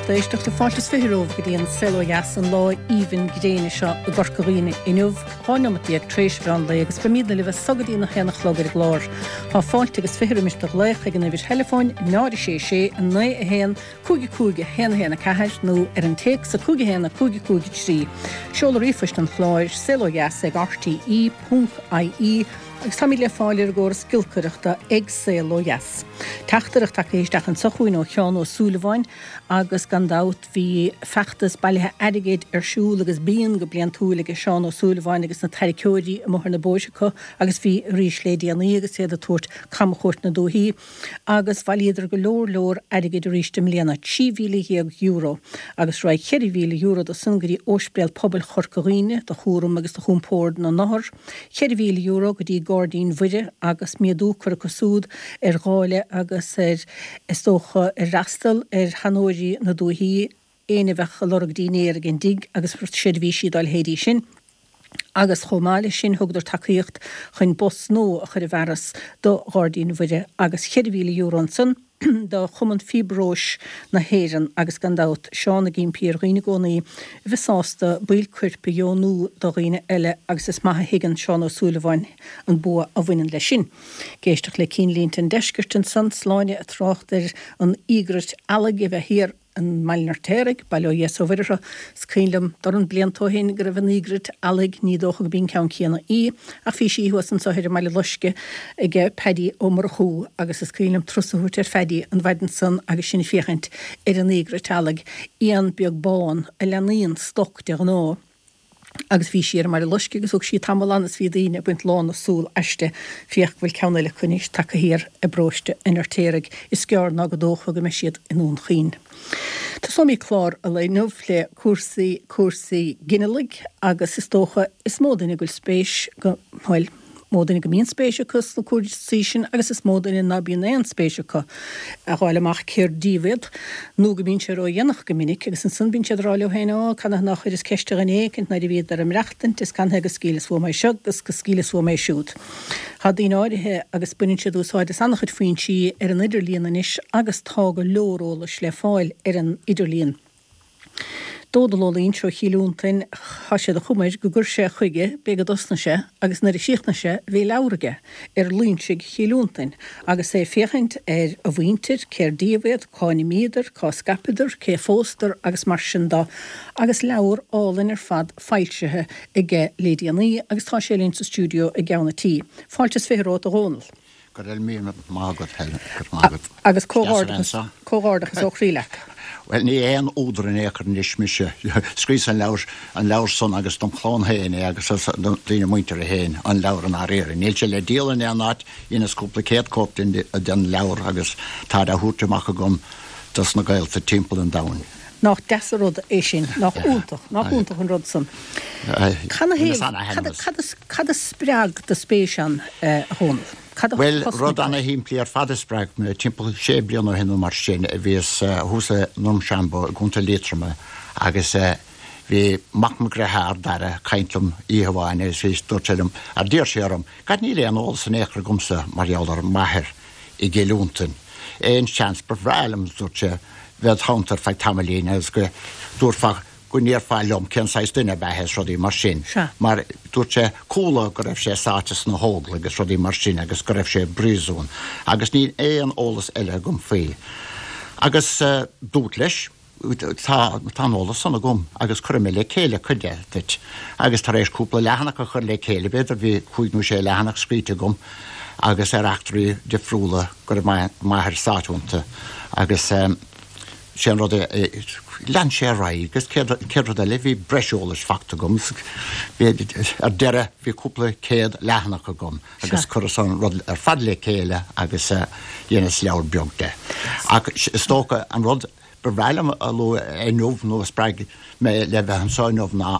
lucht éisteachta. Fáilte is 20 romhaibh go dtí an Saol Ó Dheas an lá aoibhinn gréine seo i gCorca Dhuibhne inniu, 12 neomat tar éis mheán lae agus beimidne libh as so go dtí an 1 a chlog ar an gclár. Tá fáilte agus 20 roimis do ghlaoch ag an uimhir theileafóin 0 6 6 9 1 5 5 1 1 4 nó ar an téacs 5 1 5 5 3. Seoladh ríomhphoist an chláir, saolodheas ag rte ponc ie agus táimid le fáil ar an gcóras giolcaireachta ag Saol Ó Dheas. Teachtaireacht tagtha isteach anso chugainn ó Sheán Ó Súilleabháin agus gan dabht bhí feachtas bailithe airgid ar siúl agus bíonn go bliantúil aige Seán Ó Súilleabháin agus na tarraiceoirí amuigh ar na bóithre acu agus bhí arís lé déanaí agus iad ag tabhairt camchuairt na dúichí agus bhailíodar go leor leor airgid arís i mbliana, €13,000, agus raghaidh €4,000 de san go dtí Óispidéal Pobail Chorca Dhuibhne do chúram agus do chompord na n-othar, €4,000 go dtí Gairdín Mhuire agus méadú curtha acu súd ar dháileadh agus ar, is dócha, ar fhreastal ar sheanóirí na dúichí, éinne a bheadh ag lorg dínnéar ag an dtigh agus seirbhísí dá leithéidí sin. Agus chomh maith leis sin thugadar tacaíocht chun bus nua a chur i bhfearas do Ghairdín Mhuire agus €4,000 ansan do Chumann Fiobróis na hÉireann agus gan dabht Seán ag impí ar dhaoine i gcónaí a bheith sásta baill coirp a dheonú do dhaoine eile agus is maith a thuigeann Seán Ó Súilleabháin an bua a bhaineann leis sin. Ag éisteacht le Cinnlínte an Deiscirt ansan, Sláine ag trácht ar an íograit eallaigh a bheith thiar i mBaile an Fheirtéaraigh, bail ó Dhia 's ó Mhuire orthu. Is cuimhin liom dorn blianta ó shin go raibh an íograit eallaigh, ní dócha go b'í an ceann céanna í, ach bhí sí thuas anso thoir i mBaile Loisce aige Paddy Ó Murchú agus is cuimhin liom turas a thabhairt ar Phaddy an mhaidin san agus sinn ag féachaint ar an íograit eallaigh, éan beag bán a leanaíonn stoc de ghnáth. Agus bhí sí ar an mBaile Loisce agus thug sí tamall ann is bhí daoine ag baint lán na súl aisti. Féach go bhfuil ceann eile acu anois tagtha thiar i bparóiste an Fheirtéaraigh. Is gearr ná go dócha go mbeidh siad i nDún Chaoin. Tosóimid clár an lae inniu le cúrsaí, cúrsaí ginealaigh agus is dócha is mó duine go bhfuil spéis go, bhuel, mó duine go mbíonn spéis acu sna cúrsaí sin agus is mó duine ná bíonn aon spéis acu a dh'fháil amach cér díobh iad nó go mbíonn sé ródhéanach go minic agus ansan bíonn siad ag rá leo féin Ó, canathaobh nár chuireas ceist ar dhuine éicint nuair a bhíodar ag maireachtaint is canathaobh go scaoileas uaim é seo agus go scaoileas uaim é siúd. Tá daoine áirithe agus baineann siad úsáid as an-chuid foinsí ar an idirlíon anois agus tá go leor eolais le fáil ar an idirlíon. Dónall Ó Loingsigh ó Chill Fhionntain, tá sé de chuma air go gcuir sé chuige, b'é go dtosnaigh sé agus nuair a chríochnaigh sé bhí leabhar aige ar Loingsigh Chill Fhionntain agus é ag féachaint ar a mhuintir, cér díobh iad, cá n-imíodar, cá scaipeadar, cé phósadar agus mar sin do agus leabhar álainn ar fad foilsithe aige lé déanaí agus tá sé linn sa stiúideo i gceann a' tí. Fáilte is 20 romhat a Dhónaill. Go raibh míle maith agat, Helen. Go raibh maith agat. Agus comhghairdeachas, comhghairdeachas ó chroí leat. Bhuel, ní aon údar in aon chor anois mise. Scríos an leabhar, an leabhar san agus dom chlann féin é agus do daoine muinteartha féin an leabhar i ndáiríre. Níl sé le díol in aon áit, dheineas cúpla céad cóip den, den leabhar agus táid á thabhairt amach agam dos na gaolta timpeall an domhain. Nach deas an rud é sin, nach iontach, nach iontach an rud san. Canathaobh, cad, cad a spreag do spéis ann, a Dhónaill? Cad a Bhuel, rud ana-shimplí ar fad a spreag mé. Timpeall sé bliana ó shin nó mar sin a bhíos thuas i nDrumshanbo i gContae Liatroma agus bhí mac mo dhritheár, Dara, ag caint liom oíche amháin agus bhí, dúirt sé liom, ar d'iarr sé orm, gad níl aon eolas in aon chor agamsa mar gheall ar m'athair i gCill Fhionntain. Aon seans ba bhreá liom, dúirt sé, bheith id theannta ar feadh tamaillín agus go dtabharfá, go ndéarfá liom cén saghas duine ab ea é is rudaí mar sin. Sea. Mar dúirt sé, chuala go raibh sé sáite sna hÓglaigh agus rudaí mar sin agus go raibh sé i bpríosún agus níl aon eolas eile agam faoi. Agus dúrt leis, tá, tá an eolas san agam agus cuirfidh mé le chéile cuid de duit. Agus tar éis cúpla leathanach a chur le chéile, b'fhéidir bhí cúig nó sé leathanach scríte agam agus ar eachtraí difriúla go raibh m'athair sáite iontu agus sé an rud é, lean sé ar aghaidh agus céad rud eile bhí breis eolais fachta agam, ar deireadh bhí cúpla céad leathanach agam agus chuireas an rud ar fad le chéile agus dheineas leabhar beag de. Ach is dócha an rud ba bhreá liom a lua inniu nó a spreag mé le bheith anseo inniu ná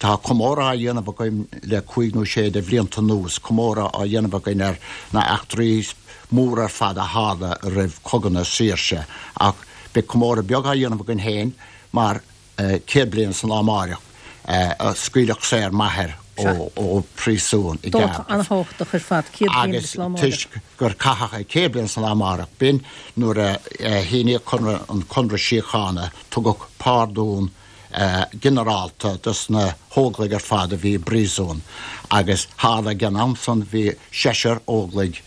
tá comóradh á dhéanamh againn le cúig nó sé de bhlianta anuas, comóradh á dhéanamh againn ar na eachtraí móra ar fad a tharla roimh Chogadh na Saoirse ach beidh comóradh beag á dhéanamh againn féin mar 100 bliain san lá amáireach a scaoileadh saor m'athair. Ó phríosún i Dáta gCardiff. an-thábhachtach ar fad, 100 bliain Agus agus lá amárach. toisc gur caitheadh é 100 bliain san lá amárach, b'in nuair a shíníodh conradh, an Conradh Síochána, tugadh pardún ginearálta dos na hÓglaigh ar fad a bhí i bpríosún agus tharla ag an am san bhí seisear Óglaigh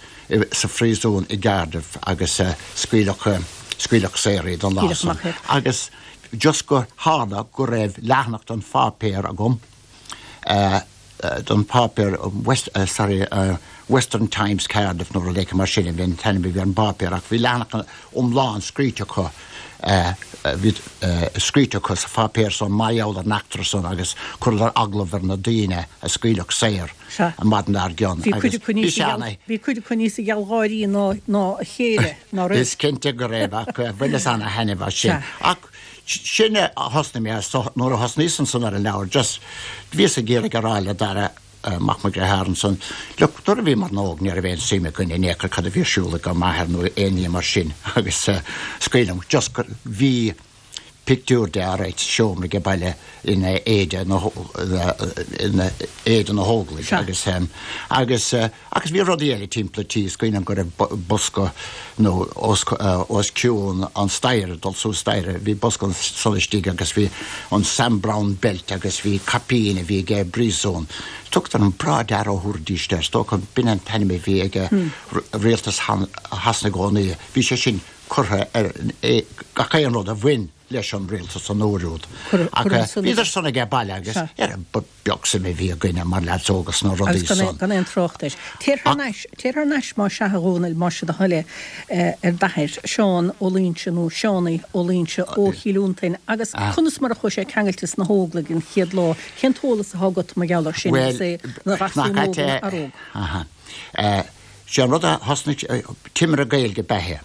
sa phríosún i gCardiff agus scaoileadh, scaoileadh saor iad an lá Scaoileadh san. amach iad. Agus just gur tharla go raibh leathanach den pháipéar agam, den pháipéar West, sorry, Western Times Cardiff nó rud éicint mar sin a bhí an t-ainm a bhí ar an bpáipéar ach bhí leathanach iomlán scríte acu, bhí scríte acu sa pháipéar san mar gheall ar an eachtra san agus chuireadar agallamh ar na daoine a scaoileadh saor an maidin dár gcionn Bhí cuid agus acu bhí níos sé ana. bhí cuid acu níosa gealgháirí ná ná a chéile, ná raibh? Is cinnte go raibh ach bhaineas ana thaitneamh as sin. Ach Sin a thosnaigh mé as, nuair a thosnaíos ansan ar an leabhar, just, bhíos ag iarraidh a rá le Dara, mac mo dhritheár ansan, look, nuair a bhíomar óg ní raibh aon suim againn in aon chor cad a bhí ar siúl ag ár m'athair nó aon ní mar sin agus scaoilim, just gur, bhí pictiúr de alright sa seomra age baile ina éide na, ina éide na hÓglaigh agus, agus, Agus bhí rudaí eile timpeall an tí, is cuimhin liom go raibh bosca nó os os cionn an staighre, dul suas staighre, bhí bosca ansan istigh agus bhí an Sam Browne belt agus bhí caipín a bhí aige i bpríosún. Tugtar an Bra Dear ó thabharfaidís air, is dócha b'in an t-ainm a bhí ag rialtas Shasana i gcónaí. Bhí sé sin curtha ar gach aon rud a bhain leis an rialtas an uair úd. Ach bhíodar san aige baile agus ar ba beag suim a bhí againne mar leaids óga sna rudaí Agus san. gan aon trácht air. Téir thar n-ais, téir thar n-ais más ea a Dhónaill, más é do thoil é, ar d'athair, Seán Ó Loingsigh nó Seánaí Ó Loingsigh ó Chill Fhionntain agus conas mar a chuaigh sé ceangailte sna hÓglaigh an chéad lá, cén t-eolas atá agat mar gheall air sin Bhuel, agus é ina gharsún nach óg ait ina é, fhear óg? aha. Sé an rud a thosnaigh, Timire Gaeilge ab ea é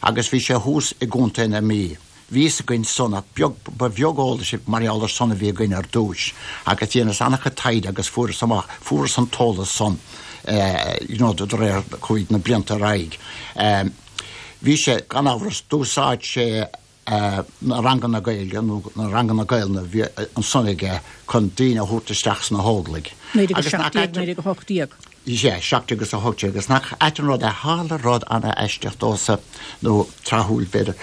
agus bhí sé thuas i gContae na Mí. Bhí fhios againn san ach beag, ba bheag eolais mar gheall ar san a bhí againn ar dtúis agus dheineas an-chuid taighde agus fuaireas amach, fuaireas an t-eolas san you know de réir chuaigh na blianta ar aghaidh. Bhí sé, gan amhras, d'úsáid sé na ranganna Gaeilge nó na ranganna Gaelainne a bhí ansan aige chun daoine a thabhairt isteach sna hÓglaigh. Agus nach ait an. 1917, 1918. Sea, 17 agus 18 agus nach ait an rud é, tharla rud ana-aisteach domhsa, nó tráthúil b'fhéidir.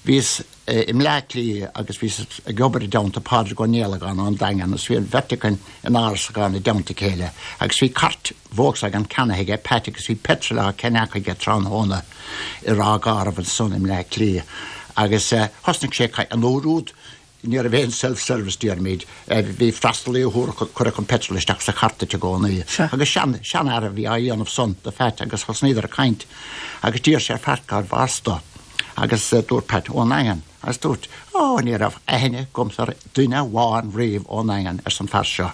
Bhíos i mBleá Cliath agus bhíos ag obair i dteannta Pádraig Ó Niallagáin ón Daingean agus bhí an bheirt againn in árasachán i dteannta a chéile agus bhí cairt Volkswagen ceannaithe aige Pat agus bhí petrol á cheannach aige tráthnóna i Ráth Garbh ansan i mBleá Cliath agus thosnaigh sé ag caint an uair úd Ní raibh aon self-service déarfaimid. Bhí freastalaí a thabharfadh, cuirfeadh an petrol isteach sa chairt duit i gcónaí. Agus sean, seanfhear a bhí á dhéanamh san do Phat agus thosnaíodar ag caint agus d'iarr sé ar Phat cárbh as dó agus dúirt Pat, ón nDaingean. Agus dúirt, Ó, ní raibh aithne agamsa ar duine amháin riamh ón nDaingean, arsa an fear seo.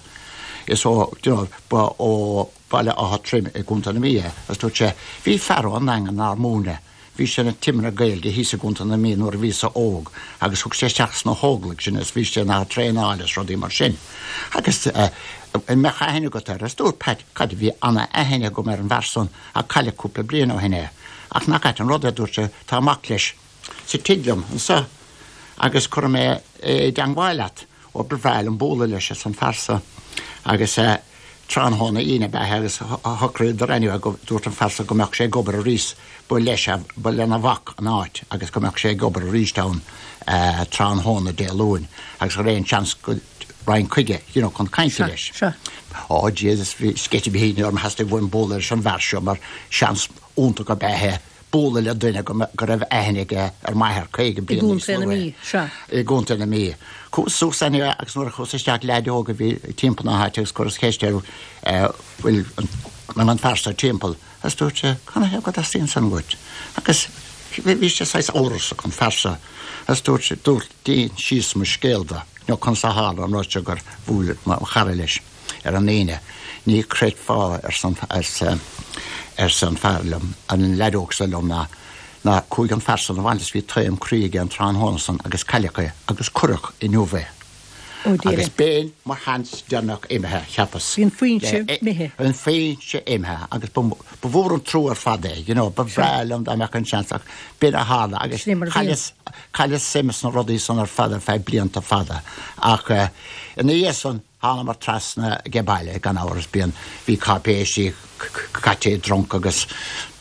Is ó, you know, ba ó Bhaile Átha Troim i gContae na Mí é. Agus dúirt sé, bhí fear ón nDaingean nár múineadh. Bhí sé ina timire Gaeilge thíos i gContae na Mí nuair a bhíos-sa óg agus thug sé isteach sna hÓglaigh sinn agus bhí sé inár dtraenáil is rudaí mar sin. Agus an mbeadh aithne agat air? Agus dúirt Pat, Cad, bhí ana-aithne agam ar an bhfear san ach cailleadh cúpla bliain ó shin é. Ach nach ait an rud é, dúirt sé, tá mac leis sa tigh liom anso agus cuirfidh mé é i dteangmháil leat. Ó ba bhreá liom bualadh leis, arsa an fear so. Agus tráthnóna Aoine ab ea é agus shocraíodar anyway go, dúirt an fear so go mbeadh sé ag obair arís, ba leis, ba lena mhac an áit agus go mbeadh sé ag obair arís ann tráthnóna Dé Luain agus go raibh aon seans go raghainn chuige, you know, chun cainte leis. Ó Jesus, bhí sceitimíní orm, theastaigh uaim bualadh leis an bhfear seo mar seans iontach ab ea é. bualadh le duine go raibh aithne aige ar m'athair 50 bliain níos luaithe. I gContae na Mí. Chuas suas anyway agus nuair a chuas isteach leaid óg a bhí timpeall na háite agus chuireas ceist air bhfuil an fear seo timpeall agus dúirt sé canathaobh go dteastaíonn san uait agus bhí sé saghas amhrasach an fear seo agus dúirt sé dúirt d'insíos mo scéal dó nó conas a tharla an rud seo gur bhuail mo chara leis. ar an Aoine. Ní chreidfeá, arsa an fear liom, an leaid óg seo liom, ná ná chuaigh an fear san abhaile is bhí taom croí aige an tráthnóna san agus cailleadh é agus cuireadh inniu é. Agus b'in mo sheans deireanach imithe, cheapas. Bhí an foinse imithe. An foinse imithe agus ba mhór an trua ar fad é, you know, ba bhreá liom dá mbeadh an seans ach b'in a tharla agus chailleas, chailleas suim sna rudaí san ar fad ar feadh blianta fada ach ina dhiaidh san. Thánamar trasna age baile, gan amhras, bíonn, bhí cáipéisí caite i dtrunc agus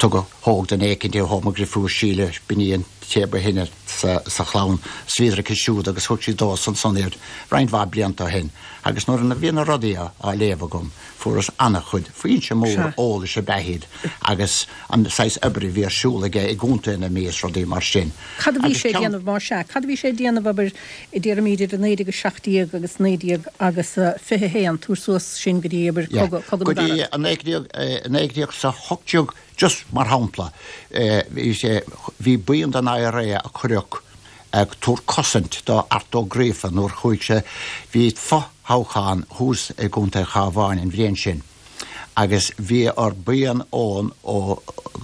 tugadh, thóg duine éicint é, thóg mo dhrifiúr Síle, b'in í an té ba shine sa chlann, is bhíodar aici siúd agus thug sí domhsa ansan iad roinnt mhaith blianta ó shin agus nuair a bhí na rudaí á léamh agam fuaireas an-chuid, foinse mór eolais ab ea iad agus an saghas oibre a bhí ar siúl aige i gContae na Mí is rudaí mar sin. Cad a bhí sé ag déanamh más ea? Cad a bhí sé ag déanamh, abair, déarfaimid idir 1917 agus 19 agus 21, tabhair suas sin go dtí, abair, cogadh, cogadh na gCarad. Go dtí 1918, just mar shampla, bhí sé, bhí buíon den IRA a cuireadh ag tabhairt cosaint do Art Ó Gríofa nuair chuaigh sé, bhí fo-thoghchán thuas i gContae an Chabháin an bhliain sin. agus bhí ar buíon ón ó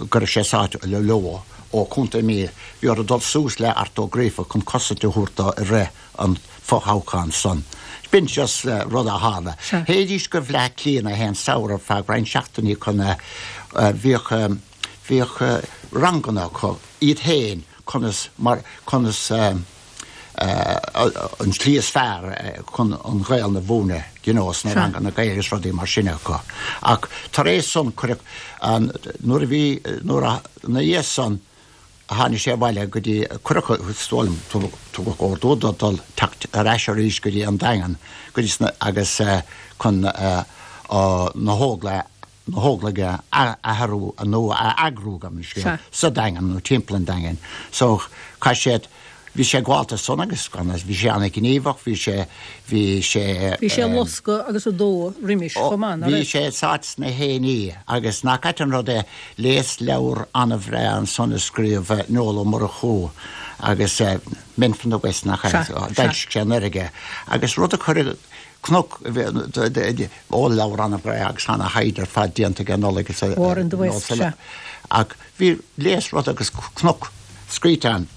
go raibh sé sáite leo ó Chontae Mí, bhí orthu dul suas le Art Ó Gríofa chun cosaint a thabhairt dó i rith an fho-thoghcháin san. B'in just rud a tharla. Théidís go Bhleá Cliath na haon samhradh ar feadh roinnt seachtainí chun bhíodh bhíodh ranganna acu iad féin conas mar conas an tslí is fearr chun an Ghaelainn a mhúineadh, you know, sna ranganna Gaeilge is rudaí mar sin acu. Ach tar éis san cuireadh an, nuair a bhí, nuair a, ina dhiaidh san tháinig sé abhaile go dtí, cuireadh, is dóigh liom, tugadh ordú dó dul teacht ar ais arís go dtí an Daingean, go dtí sna, agus chun na hÓglaigh na hÓglaigh a athrú nó a eagrú, gabh mo leithscéal, sa Daingean nó timpeall an Daingin. So, chaith sé, bhí sé gaolta san agus gan bhí sé an-ghníomhach, bhí sé, bhí sé. Bhí sé ag loscadh agus ag dó roimis chomh maith, ná raibh? Bhí sé sáite sna hÉiní agus nach ait an rud é, léas leabhar an-bhreá ansan a scríobh Noel Ó Murchú agus Men from the West nach ea, d'fhoilsigh sé anuraidh é agus rud a chuir Cnoc, ó leabhar an-bhreá agus ana-thaighde ar fad déanta ag Nollaig is War in the West, sea. Ach bhí léas rud agus cnoc scríte ann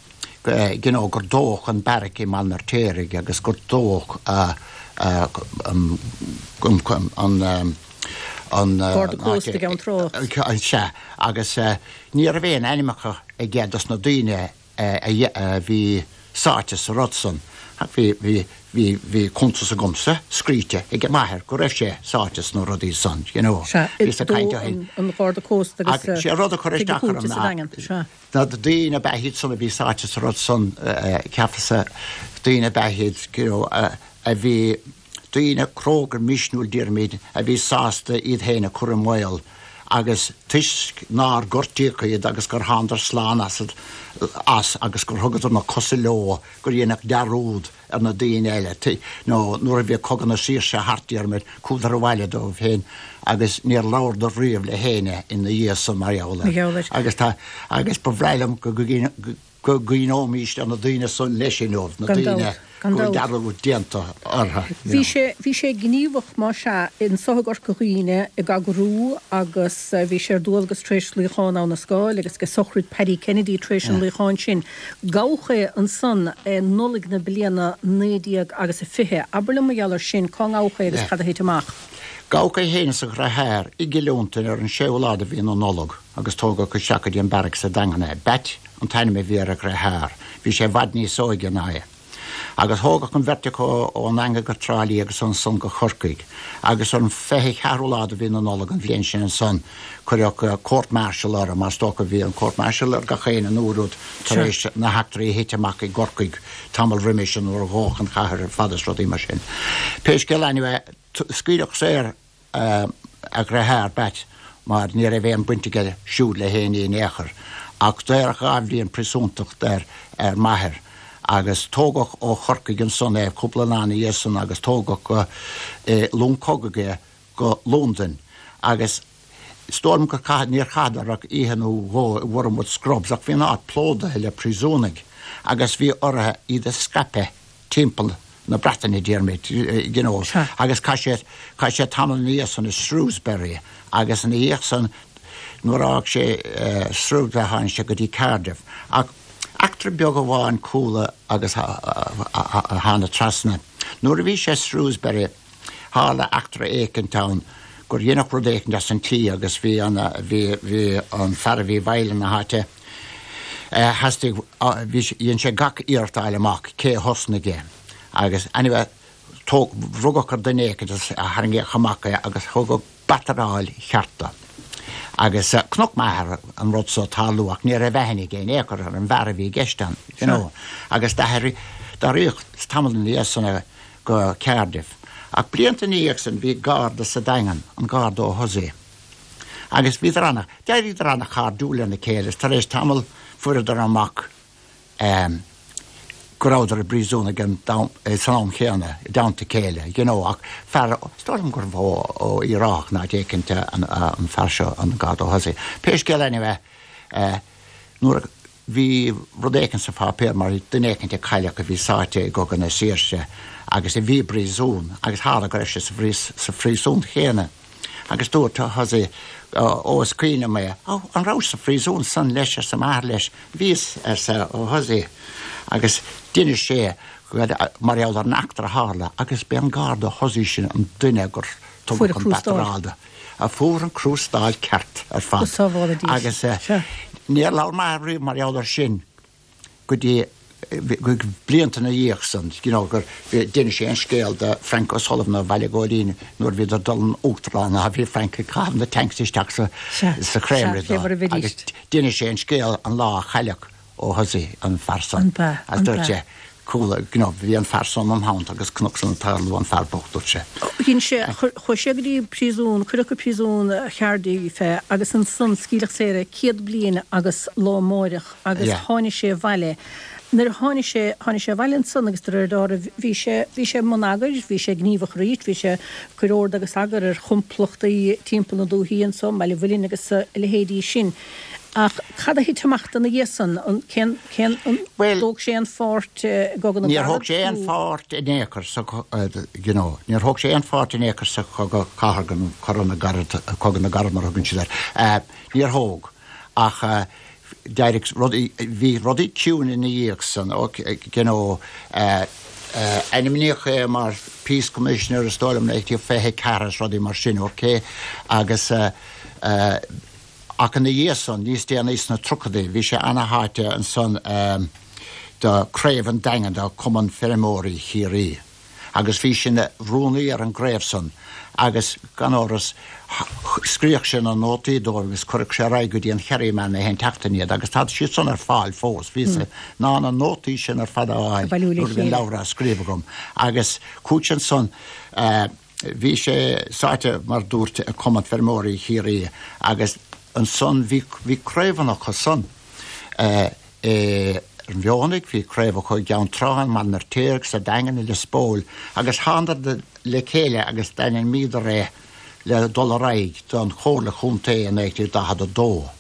you know gur dódh an beairic i mBaile an Fheirtéaraigh agus gur dódh an an Garda Cósta i gCeann Trá. Sea, agus ní raibh aon ainmneacha aige dos na daoine a bhí sáite sa rud san, ach bhí, bhí, bhí, bhí cuntas agamsa scríte ag m'athair go raibh sé sáite sna rudaí san, you know. Sea, i dó an Gharda Cósta agus Ach sé rud a chuir isteach orm ná, sea. na daoine ab ea iad san a bhí sáite sa rud san, cheapas-sa, daoine ab ea iad, you know, a bhí, daoine cróga misniúil déarfaimid a bhí sásta iad féin a chur i mbaol agus toisc nár gortaíodh iad agus gur thánadar slán as as agus gur thugadar na cosa leo gur dhéanadh dearúd ar na daoine eile nó nuair a bhí Cogadh na Saoirse thart déarfaimid chuadar abhaile dóibh féin agus níor labhradar riamh le héinne ina dhiaidh san mar gheall air agus tá agus ba bhreá liom go go gcuimhneoimís ar na daoine san leis inniu, na daoine go bhfuil dearúd déanta orthu. Bhí sé, bhí sé gníomhach, más ea, anso i gCorca Dhuibhne ag eagrú agus bhí sé ar dualgas tar éis luíochán Abha na Scáil agus ag sochraid Paddy Kennedy tar éis an luíocháin sin. Gabhadh é ansan i Nollaig na bliana 19 agus a 20. Abair liom mar gheall ar sin, cá ngabhadh é agus cad a thit amach? Gabhadh é féin is a dhriotháir i gCill Fhionntain ar an séú lá de mhí na Nollag agus tógadh isteach go dtí an beairic sa Daingean é. Batt an t-ainm a bhí ar a dhriotháir. Bhí sé i bhfad níos óige ná é. Agus thógadh an bheirt acu ón nDaingean go Trá Lí agus ansan go Corcaigh. Agus ar an 24ú lá de mhí na Nollag an bhliain sin ansan cuireadh court martial orthu, mar is dócha bhí an court martial ar gach éinne an uair úd tar éis na heachtraí a thit amach i gCorcaigh tamall roimis sin nuair a dhódh an chathair ar fad is rudaí mar sin. Pé scéal anyway, scaoileadh saor a dhriotháir, Batt, mar ní raibh aon baint aige siúd le héinne in aon chor. Ach daoradh 2 bhliain príosúntacht ar ar m'athair agus tógadh ó Chorcaigh ansan é cúpla lá ina dhiaidh san agus tógadh go long cogaidh é go Londain agus is dóigh liom gur caitheadh, níor chaitheadar ach oíche nó dhó i Wormwood Scrubs ach bhí an áit plódaithe le príosúnaigh agus bhí orthu iad a scaipeadh timpeall na Breataine, déarfaimid, you know, agus chaith sé, chaith sé tamall ina dhiaidh san i Shrewsbury agus ina dhiaidh san nuair a fhág sé Shrewsbury tháinig sé go dtí Cardiff. Ach eachtra beag amháin chuala agus thána trasna. Nuair a bhí sé i Shrewsbury tharla eachtra éicint ann gur dheineadh rud éicint as an tslí agus bhí an, bhí, bhí an fear a bhí i bhfeighil na háite, Theastaigh, bhí, dhein sé gach iarracht a fháil amach cé a thosnaigh é agus anyway. Tóg, rugadh ar duine éicint agus tharraingíodh amach é agus thugadh bataráil cheart dó. Agus chonaic m'athair an rud so tarlú ach ní raibh aithne aige in aon chor ar an bhfear a bhí i gceist ann, you know. Agus d'athraigh, d'athraíodh tamall ina dhiaidh san é go Cardiff. Ach blianta ina dhiaidh san bhí garda sa Daingean, an Garda Ó hUsaidh. Agus bhíodar ana, d'éiríodar ana-chairdiúil lena chéile is tar éis tamaill fuaireadar amach go rabhadar i bpríosún ag an san am chéanna, i dteannta a chéile, you know, ach fear, is dóigh liom gurbh ó Uíbh Ráthach nó áit éicint an fear seo, an Garda Ó hUsaidh. Pé scéal anyway, nuair a bhí rud éicint sa pháipéar mar duine éicint a cailleadh a bhí sáite i gCogadh na Saoirse agus a bhí i bpríosún agus tharla go raibh sé sa phríosún chéanna. Agus dúirt Ó hUsaidh, Ó, is cuimhin liom é. Ó, an rabhais sa phríosún san leis, arsa m'athair leis. Bhíos, arsa Ó hUsaidh. Agus d'inis sé mar gheall ar an eachtra a tharla agus b'é an Garda Ó hUsaidh sin an duine gur tugadh an bataráil do. A fuair an crústáil ceart ar fad. Agus níor labhair m'athair riamh mar gheall ar sin. go dtí blianta ina dhiaidh san, you know, gur d'inis sé an scéal do Frank O'Sullivan ó Bhaile Ghóilín nuair a bhíodar ag dul an Uachtarán a bhí Frank ag caitheamh na tanks isteach sa sa chreamery dó agus d'inis sé an scéal an lá a chailleadh Ó hUsaidh an fear san agus dúirt sé Chuala, you know, bhí an fear san im theannta agus chonac san ag tarlú an fear bocht, dúirt sé. Dhein sé, chuaigh sé go dtí príosún, cuireadh go príosún Chardiff é agus ansan scaoileadh saor é 100 bliain agus lá amáireach agus tháinig sé abhaile. Nuair a tháinig sé, tháinig sé abhaile ansan agus de réir dealraimh bhí sé, bhí sé i mbun eagair, bhí sé gníomhach arís, bhí sé ag cur ord agus eagar ar chomplachtaí timpeall na dúichí anso, i mBaile Mhuilinn agus a leithéidí sin. Ach cad a thit amach dó ina dhiaidh san? An, cén, cén, an Bhuel, dtóg sé aon pháirt i gCogadh na níor gCarad thóg sé aon nó? pháirt in aon chor sa, you know, níor thóg sé aon pháirt in aon chor sa Chogadh Cathartha nó Cogadh na gCarad, Cogadh na gCarad mar a thugann siad air. Níor thóg. Ach d'éirigh rudaí, bhí rudaí ciúin ina dhiaidh san, you know, ainmníodh é mar Peace Commissioner is dóigh liom 1924 is rudaí mar sin, ok, agus Ach ina dhiaidh san, níos déanaí sna tríochadaí, bhí sé ana-sháite ansan do Craobh an Daingin de Chumann Feirmeoirí Chiarraí agus bhí sé ina rúnaí ar an gcraobh san agus, gan amhras, scríodh sé na nótaí dóibh agus chuireadh sé ar aghaidh go dtí an Kerryman na haon tseachtain iad agus tá siad san ar fáil fós. Bhíos in ann na nótaí sin ar fad a fháil nuair a bhí an leabhar á scríobh agam agus chuaigh sé ansan. Bhí sé sáite, mar dúrt, i Cumann Feirmeoirí Chiarraí agus ansan bhí, bhí craobhanna acu san i an Mhionnaigh, bhí craobh acu i gCeann Trá, i mBaile an Fheirtéaraigh, sa Daingean, i Lios Póil agus thánadar le chéile agus d'ainmníodar é le dul ar aghaidh don Chomhairle Chontae i 1942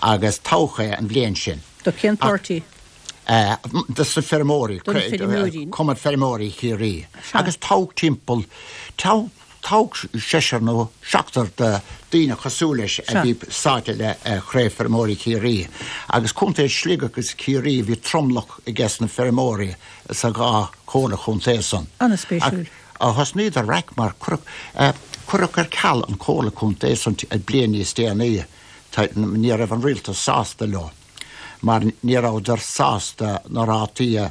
agus toghadh é an bhliain sin. Do cén páirtí? Dos na feirmeoirí, Do na feirmeoirí. Cumann Feirmeoirí Chiarraí. Agus toghadh timpeall, toghadh seisear nó seachtar de daoine cosúil leis a bhí sáite le Craobh Feirmeoirí Chiarraí. Agus Contae Shligigh agus Ciarraí bhí tromlach ages na feirmeoirí sa dhá chomhairle chontae san. An-spéisiúil. Ach thosnaíodar raic mar cuireadh ar ceal an chomhairle chontae san bliain níos déanaí. Ní raibh an rialtas sásta leo. mar ní rabhadar sásta na rátaí a,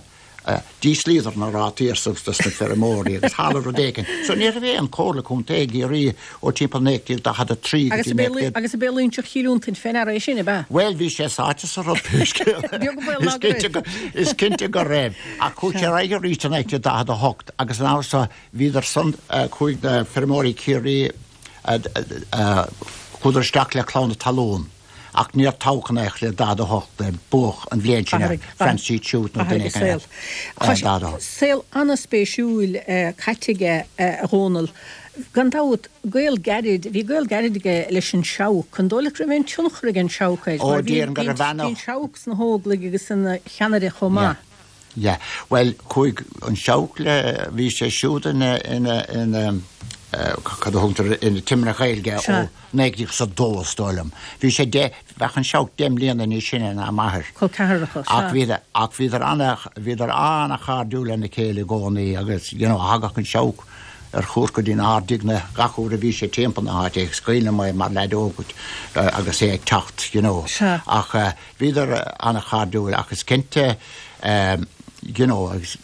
d'íslíodar na rátaí ar dos na feirmeoirí agus tharla rud éigin. So ní raibh aon Chomhairle Contae i gCiarraí ó timpeall 1943 go Agus dtí ab é 19. Agus ab é Loingseach Chill Fhionntain fé ndeara é sin, ab ea? Bhuel, bhí sé sáite sa rud pé scéal é. Beag an baol ná go raibh. Is cinnte go raibh. Ach chuaigh sé ar aghaidh arís i 1948 agus an uair so bhíodar san, chuaigh na feirmeoirí Chiarraí, chuadar isteach le Clann na Talún. Ach níor toghadh in aon chor le 48 é, buadh an bhliain sin ar Francie Tuite nó duine éigin eile. 48. Saol an-spéisiúil caite aige, a Dhónaill. Gan dabht, gaol gairid, bhí gaol gairid aige leis an Seabhac. An dóigh leat go raibh aon tionchar ag an Seabhac air? Ó, déarfainn go raibh ana. Bhí an Seabhac sna hÓglaigh agus ina cheannaire chomh maith. Yeah. Bhuel, chuaigh an Seabhac le, bhí sé siúd ina, ina, ina, cad a thugtar, ina Timire Gaeilge ó 1902 is dóigh liom. Bhí sé deich, bheadh an Seabhac 10 mbliana níos sine ná m'athair. Col ceathracha, sea. Ach bhíodar, ach bhíodar ana, bhíodar ana-chairdiúil lena chéile i gcónaí agus, you know, thagadh an Seabhac ar chuairt go dtí an Ard-Aighne gach uair a bhí sé timpeall na háite agus is cuimhin liom é mar leaid óg agus é ag teacht, you know. Sea. Ach. Bhíodar an-chairdiúil ach is cinnte. You know, agus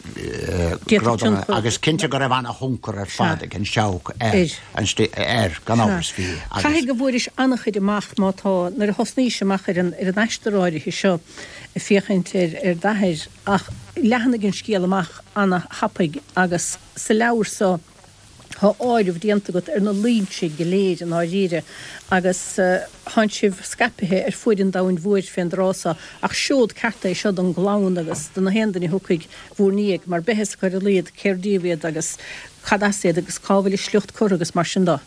agus cinnte go raibh ana-thionchar ar fad ag an Seabhac ar an air, gan amhras bhí. Agus. Caithfidh go bhfuairis an-chuid amach má tá, nuair a thosnaís amach ar an ar an aistear áirithe seo ag féachaint ar ar d'athair ach leathnaigh an scéal amach ana-thapaidh agus sa leabhar so, Tá áireamh déanta agat ar na Loingsigh go léir i ndáiríre agus tánn sibh scaipithe ar fuaid an domhain mhóir fén dtráth so, ach seod ceart é seo don gclann agus do na haon duine a thiocfaidh bhúr ndiaidh, mar beidh fhios acu ar a laghad cér díobh iad agus cad as iad agus cá bhfuil a sliocht curtha agus mar sin do.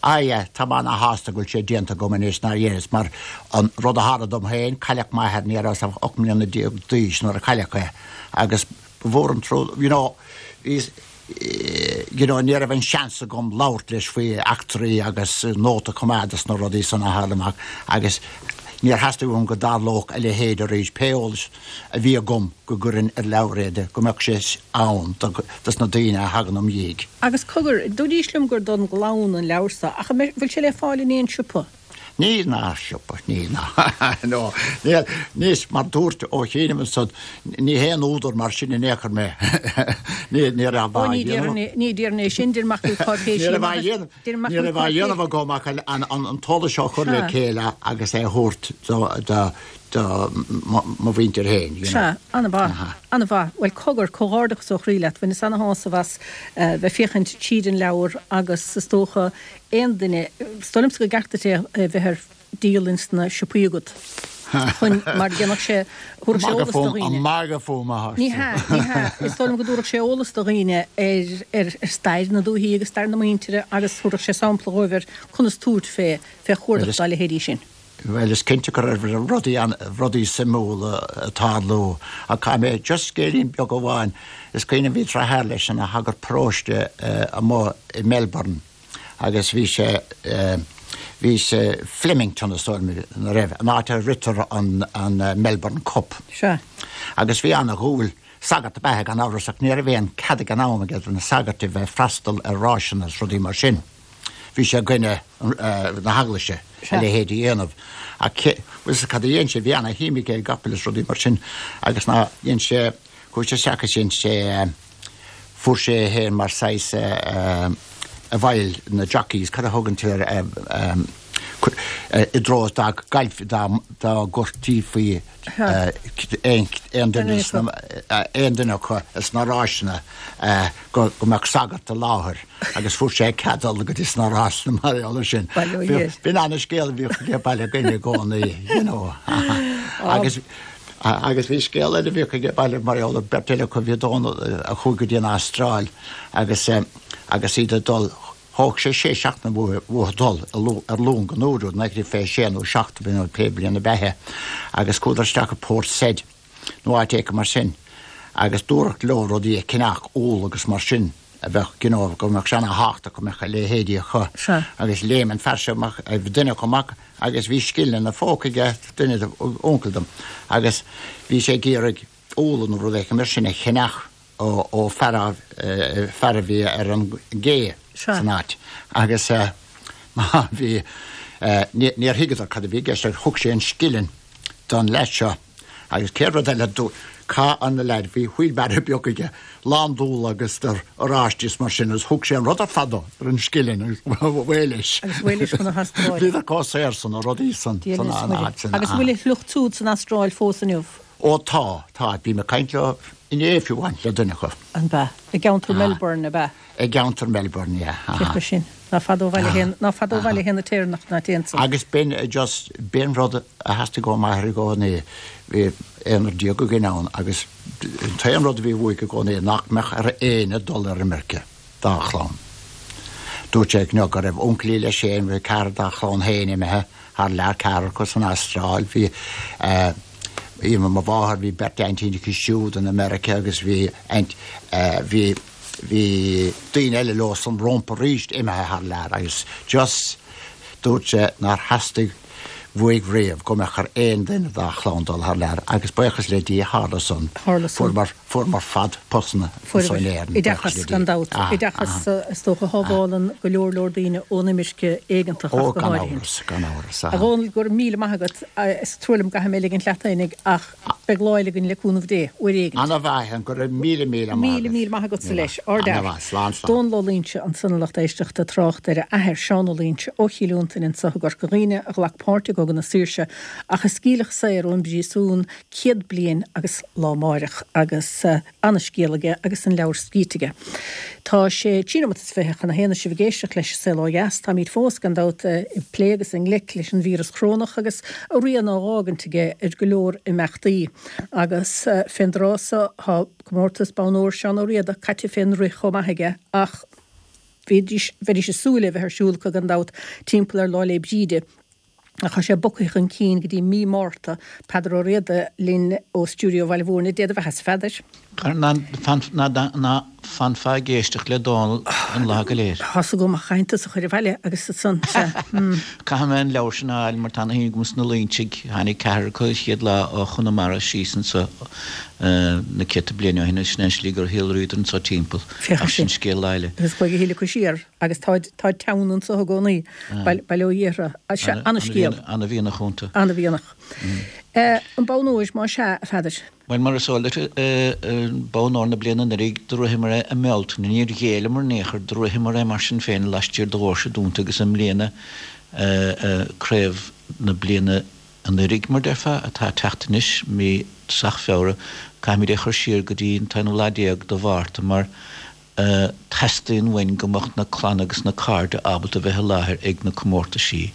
Aye, tá mé ana-shásta go bhfuil sé déanta agam anois nár dheineas mar an rud a tharla dom féin, cailleadh m'athair, ní rabhas ach 18 mbliana d'aois nuair a cailleadh é agus ba mhór an trua, you know, bhíos, you know, ní raibh an seans agam labhairt leis faoi eachtraí agus nóta a choimeád dos na rudaí san a tharla amach agus níor theastaigh uaim go dtarlódh a leithéid arís, pé eolas a bhí agam go gcuirfinn ar leabhar é, go mbeadh sé ann dos na daoine a thagann im dhiaidh. Agus cogar, dúraís liom gur don gclann an leabhar so, ach an bhfuil sé le fáil in aon siopa? Níl ná siopa, níl ná, no, níl, níos, mar dúirt Ó Chianaibh ansan, ní haon údar mar sin in aon chor mé, ní, ní raibh á dhéanamh. Ó, ní déarfainn, ní déarfainn é sin, deir mac cáipéisí Ní raibh á dhéanamh, ní raibh á dhéanamh agam ach an, an, an t-eolas seo a chur le chéile agus é a thabhairt do, do, do mo mhuintir féin, you know. Sea, an-mhaith, an-mhaith. Bhuel, cogar, comhghairdeachas ó chroí leat, bhaineas ana-shásamh as bheith féachaint tríd an leabhar agus is dócha aon duine, is dóigh liomsa go gceart duit é a bheith ar díol ins na siopaí agat chun, mar dhéanfadh sé, thabharfadh sé eolas do dhaoine. An magadh fúm atá Ní hea, ní hea, is dóigh liom go dtabharfadh sé eolas do dhaoine ar, ar, ar stair na dúichí agus stair na muintire agus thabharfadh sé sampla dhóibh ar conas tabhairt fé, fé chuardach dá leithéidí sin. Bhuel, is cinnte go raibh rudaí, rudaí suimiúla ag tarlú ach caithfidh mé just scéilín beag amháin, is cuimhin liom bhí deartháir leis ina shagart paróiste amuigh i Melbourne agus bhí sé, bhí sé Flemington is dóigh liom ina raibh, an áit a ritear an, an Melbourne Cup. Sea. Agus bhí ana-dhúil, sagart ab ea é gan amhras ach ní raibh aon cead ag an am aige do na sagairt a bheith ag freastal ar ráiseanna is rudaí mar sin. Bhí sé i gcoinne na heaglaise a leithéid a dhéanamh. Ach bhfuil fhios agat cad a dhein sé, bhí ana-shuim aige i gcapaill is rudaí mar sin agus ná dhein sé, chuaigh sé isteach is dhein sé, fuair sé é féin mar saghas i bhfeighil na jockeys, cad a thugann tú air, i dtreo dá gcaillfí, dá gcuirtí faoi aon duine aon duine acu sna ráiseanna go mbeadh sagart i láthair. Agus fuair sé cead dul go dtí sna rásanna mar gheall air sin. B'in ana-scéal a bhíodh aige baile againn i gcónaí, you know. Agus agus bhí scéal eile a bhíodh aige baile mar gheall ar beirt eile acu, bhí Dónal a chuaigh go dtí an Astráil agus agus iad ag dul, thóg sé sé seachtaine uathu dul ar long an uair úd, 1926 nó 7 nó pé bliain ab ea é, agus chuadar isteach i Port Said nó áit éicint mar sin agus dúradh leo rudaí a cheannach, úll agus mar sin. a bheadh, you know, go mbeadh sé ana-thábhachtach go mbeadh a leithéidí acu. Sea. Agus léim an fear seo amach, duine acu amach agus bhí scilling ina phóca aige, duine de, uncail dom, agus bhí sé ag iarraidh úlla nó rud éicint mar sin a cheannach ó, ó fear a, fear a bhí ar an gcé Sea. san áit. Agus má bhí, níor thuigeadar cad a bhí i gceist ach thug sé an scilling don leaid seo. Agus céad rud eile, chaith an leaid, bhí wheelbarrow beag aige, lán d'úlla agus d'oráistí is mar sin, agus thug sé an rud ar fad dó ar an scilling agus away leis. Agus away leis chun na hAstráile. Bhíodar chomh saor san, na rudaí san, san áit sin. Agus an bhfuil a shliocht siúd san Astráil fós inniu? Ó tá, tá. Bhí mé ag caint leo inné fiú amháin, le duine acu. An b'ea? I gceantar Melbourne, ab ea? I gceantar Melbourne, yeah. Féach leis sin. Ná fada ó bhaile fhéin, ná fada ó bhaile fhéin na Téireannach ná téann san. Agus b'in just, b'in rud a theastaigh ó m'athair i gcónaí, bhí aonrar déag againn ann agus an t-aon rud a bhí uaidh i gcónaí nach mbeadh ar éinne dul ar imirce dá chlann. Dúirt sé go raibh uncailí leis féin, bhí ceathrar dá chlann féin imithe thar lear, ceathrar acu san Astráil, bhí eh, mo mháthair, bhí beirt aintín aici siúd in America agus bhí aint, eh, bhí, Bhí daoine eile leo san rómpa arís imithe thar lear agus just dúirt sé nár theastaigh. Uaidh riamh go mbeadh ar aon duine dá chlann dul thar lear agus buíochas le Dia tharla san. Tharla san. Fuaireamar, fuaireamar fad postanna anso in Éirinn, buíochas Oideachas, le Dia. gan dabht. Aha, Oideachas, aha. is dócha, a shábhálann go leor leor daoine ón imirce éigeantach Ó, ach go gan háirithe. amhras, gan amhras, A aha. Dhónaill, go raibh míle maith agat. Is trua liom go gcaithfidh mé ligint leat fhéinig ach beidh lá eile againn le cúnamh Dé, uair éigint. Ana-mhaith, go raibh míle, míle maith Míle, agat. míle maith agatsa Míle leis. maith. Ardfhear. Ana-mhaith. Slán, slán. Dónal Ó Loingsigh ansan a lucht éisteachta, trácht ar a athair, Seán Ó Loingsigh, ó Chill Fhionntain anso i gCorca Dhuibhne, a ghlac páirt i gCogadh na Saoirse ach a scaoileadh saor ón bpríosún 100 bliain agus lá amáireach agus ana-scéal aige agus an leabhar scríte aige. Tá sé trí nóimeat is 20 chun a haon is sibh ag éisteacht leis An Saol Ó Dheas. Táimid fós, gan dabht, ag plé agus i ngleic leis an víreas chorónach agus a rian á dh'fhágaint aige ar go leor imeachtaí. Agus fén dtráth so tá comórtas Bonn Óir Seán Ó Riada caite fén rith chomh maith aige ach bhídís, bheidís ag súil é bheith ar siúl acu gan dabht timpeall ar Lá 'le Bríde. Ach tá sé bogtha chun cinn go dtí mí Márta. Peadar Ó Riada linn ó stiúideo Bhaile Mhúirne. Dé do bheathasa, a Pheadair. Ná fanfá ag éisteacht le Dónal an lá go léir. Tá's agam ach caithfidh tusa a chur abhaile agus ansan, sea. Caithfidh mé an leabhar sin a fháil mar tá ana shuim agam sna Loingsigh. Tháinig ceathrar acu an chéad lá ó Chonamara síos anso na céadta bliain ó shin agus sin é an slí gur shíolraíodar anso timpeall. Féach Ach sin. sin scéal lá eile. Agus chuaigh a thuilleadh acu siar. Agus táid, táid teann anso i gcónaí, bail ó Dhia orthu. Sea, ana-scéal. Ana-mhianach iontu. Ana-mhianach. An bonn óir, más ea, a Pheadair? Bhuel, mar is eol duit, bonn óir na bliana anuraidh, do ritheamar é i mBealtaine. Níor ghéilleamar in aon chor, do ritheamar é mar sin féin laistiar de dhoirse dúnta agus i mbliana, craobh na bliana anuraidh, mar déarfá, atá ag teacht anois, mí tosach Feabhra, caithfimid é a chur siar go dtí an t-aonú lá déag de Mhárta mar, Teastaíonn uainn go mbeadh na clanna agus na cairde ábalta bheith i láthair ag na comórtaisí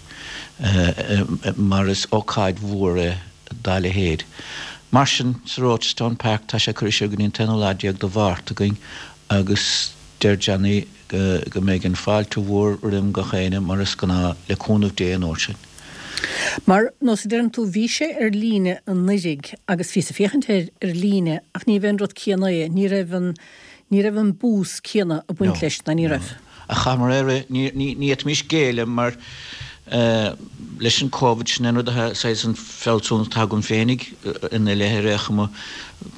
mar is ócáid mhór é dá leithéid. Mar sin, sa Rochestown Park, tá sé curtha siar go dtí an t-aonú lá déag de Mhárta againn agus deir Johnny go mbeidh an fáilte mhór roim gach éinne mar is gnáth, le cúnamh Dé an uair sin. Mar, nós a deireann tú, bhí sé ar líne anuiridh agus bhíos ag féachaint air ar líne ach ní bheith an rud céanna é, ní raibh an, ní raibh an bús céanna ag baint leis, ná ní raibh. Ach chaitheamar é a rith, ní, ní, ní fhéadfaimis géilleadh mar eh leis an Covid, sin é an rud atá, saghas an fealsúnacht atá agam féinig ina leith ar aon chuma,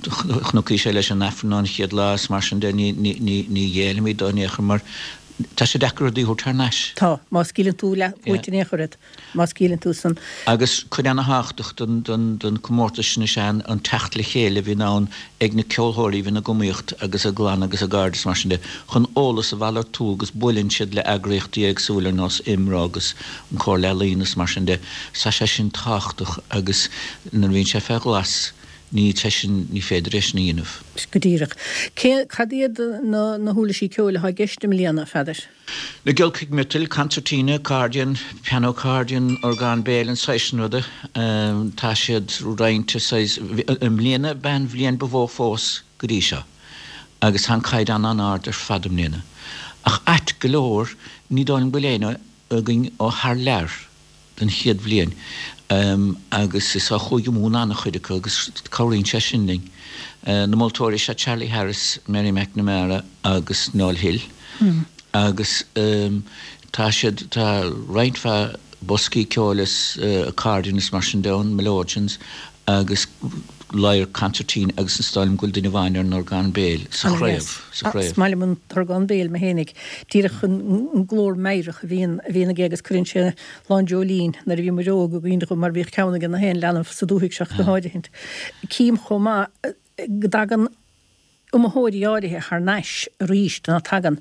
chonacthas é leis an Aifreann an chéad lá is mar sin de, ní, ní, ní, ní ghéillfimid dó in aon chor mar Tá sé deacair rudaí a thabhairt thar n-ais. Tá. Má scaoileann tú leath uait in aon chor iad. Má scaoileann tú san. Agus cuid ana-thábhachtach den comórtas sin is ea an teacht le chéile a bhíonn ann ag na ceolthóirí a bhíonn ag iomaíocht agus a gclann agus a gcairde is mar sin de chun eolas a mhalartú agus buaileann siad le eagraíochtaí éagsúla ar nós IMRO agus an Comhairle Ealaíon is mar sin de. Tá sé sin tábhachtach agus nuair a bhíonn sé fé ghlas Ní sé sin, ní féidir é sin a dhéanamh. Go díreach. Cé, cad iad na, na huirlisí ceoil atá i gceist i mbliana, a Pheadair? Na giolcaigh miotail, concertina, accordion, piano accordion, orgán béil, an saghas sin ruda. Tá siad roinnte saghas, i mbliana b'é an bhliain ba mhó fós go dtí seo agus tá an caighdeán an-ard ar fad i mbliana. Ach ait go leor, ní dóigh liom go bhfuil éinne againn ó thar lear. den chéad bhliain agus is ó Chúige Mumhan an-chuid acu agus cabhraíonn sé sin linn. Na moltóirí is ea Charlie Harris, Mary McNamara agus Noel Hill agus tá siad, tá roinnt mhaith boscaí ceoil is accordion is mar sin de ann, melodeons agus lyre concertina agus is dóigh liom go bhfuil duine amháin ar an orgán béil sa chraobh, sa chraobh. Is maith liom an t-orgán béil mé fhéinig. Díreach an glór meidhreach a bhíonn, a bhíonn aige agus cuireann sé lán dreoilín nuair a bhí muid óg i gcuimhne dhom mar bhíodh ceann ag na haon leanbh sa dúthaigh seo go háirithint. Cím chomh maith go dtagann iomaitheoirí áirithe thar n-ais arís ná tagann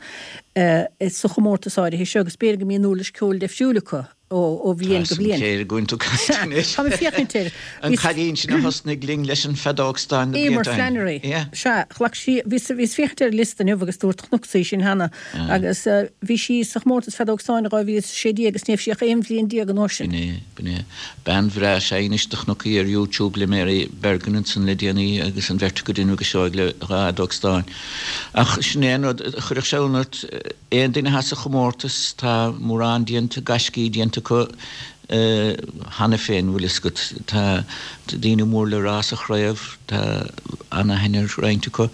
sa chomórtas áirithe seo agus b'fhéidir go mbíonn uirlis ceoil deifriúil acu ó bhliain go bliain. Tá céir ag tú caint anois. Tá mé ag féachaint air. An cailín sin a thosnaigh linn leis an feadóg stáin na Eimear blianta ó shin. Flannery. Sea, ghlac sí, bhíos ag féachaint ar an liosta inniu agus dúirt chonacsa í sin cheana agus bhí sí sa chomórtas feadóg stáin i 2016 agus ní raibh sí ach 11 bhliain an uair sin. B'in é, b'in é. Bean bhreá is ea í anois do chonac í ar YouTube le Mary Bergin ansan le déanaí agus an bheirt acu ag déanamh go seoigh le dhá fheadóg stáin. Ach sin é an rud, chuirfeadh sé ionadh ort, aon duine atá sa chomórtas, tá mórán déanta, gaiscí déanta acu. Cheana féin, bhfuil fhios agat, tá daoine mór le rá sa chraobh, tá ana-aithne ar roinnt acu.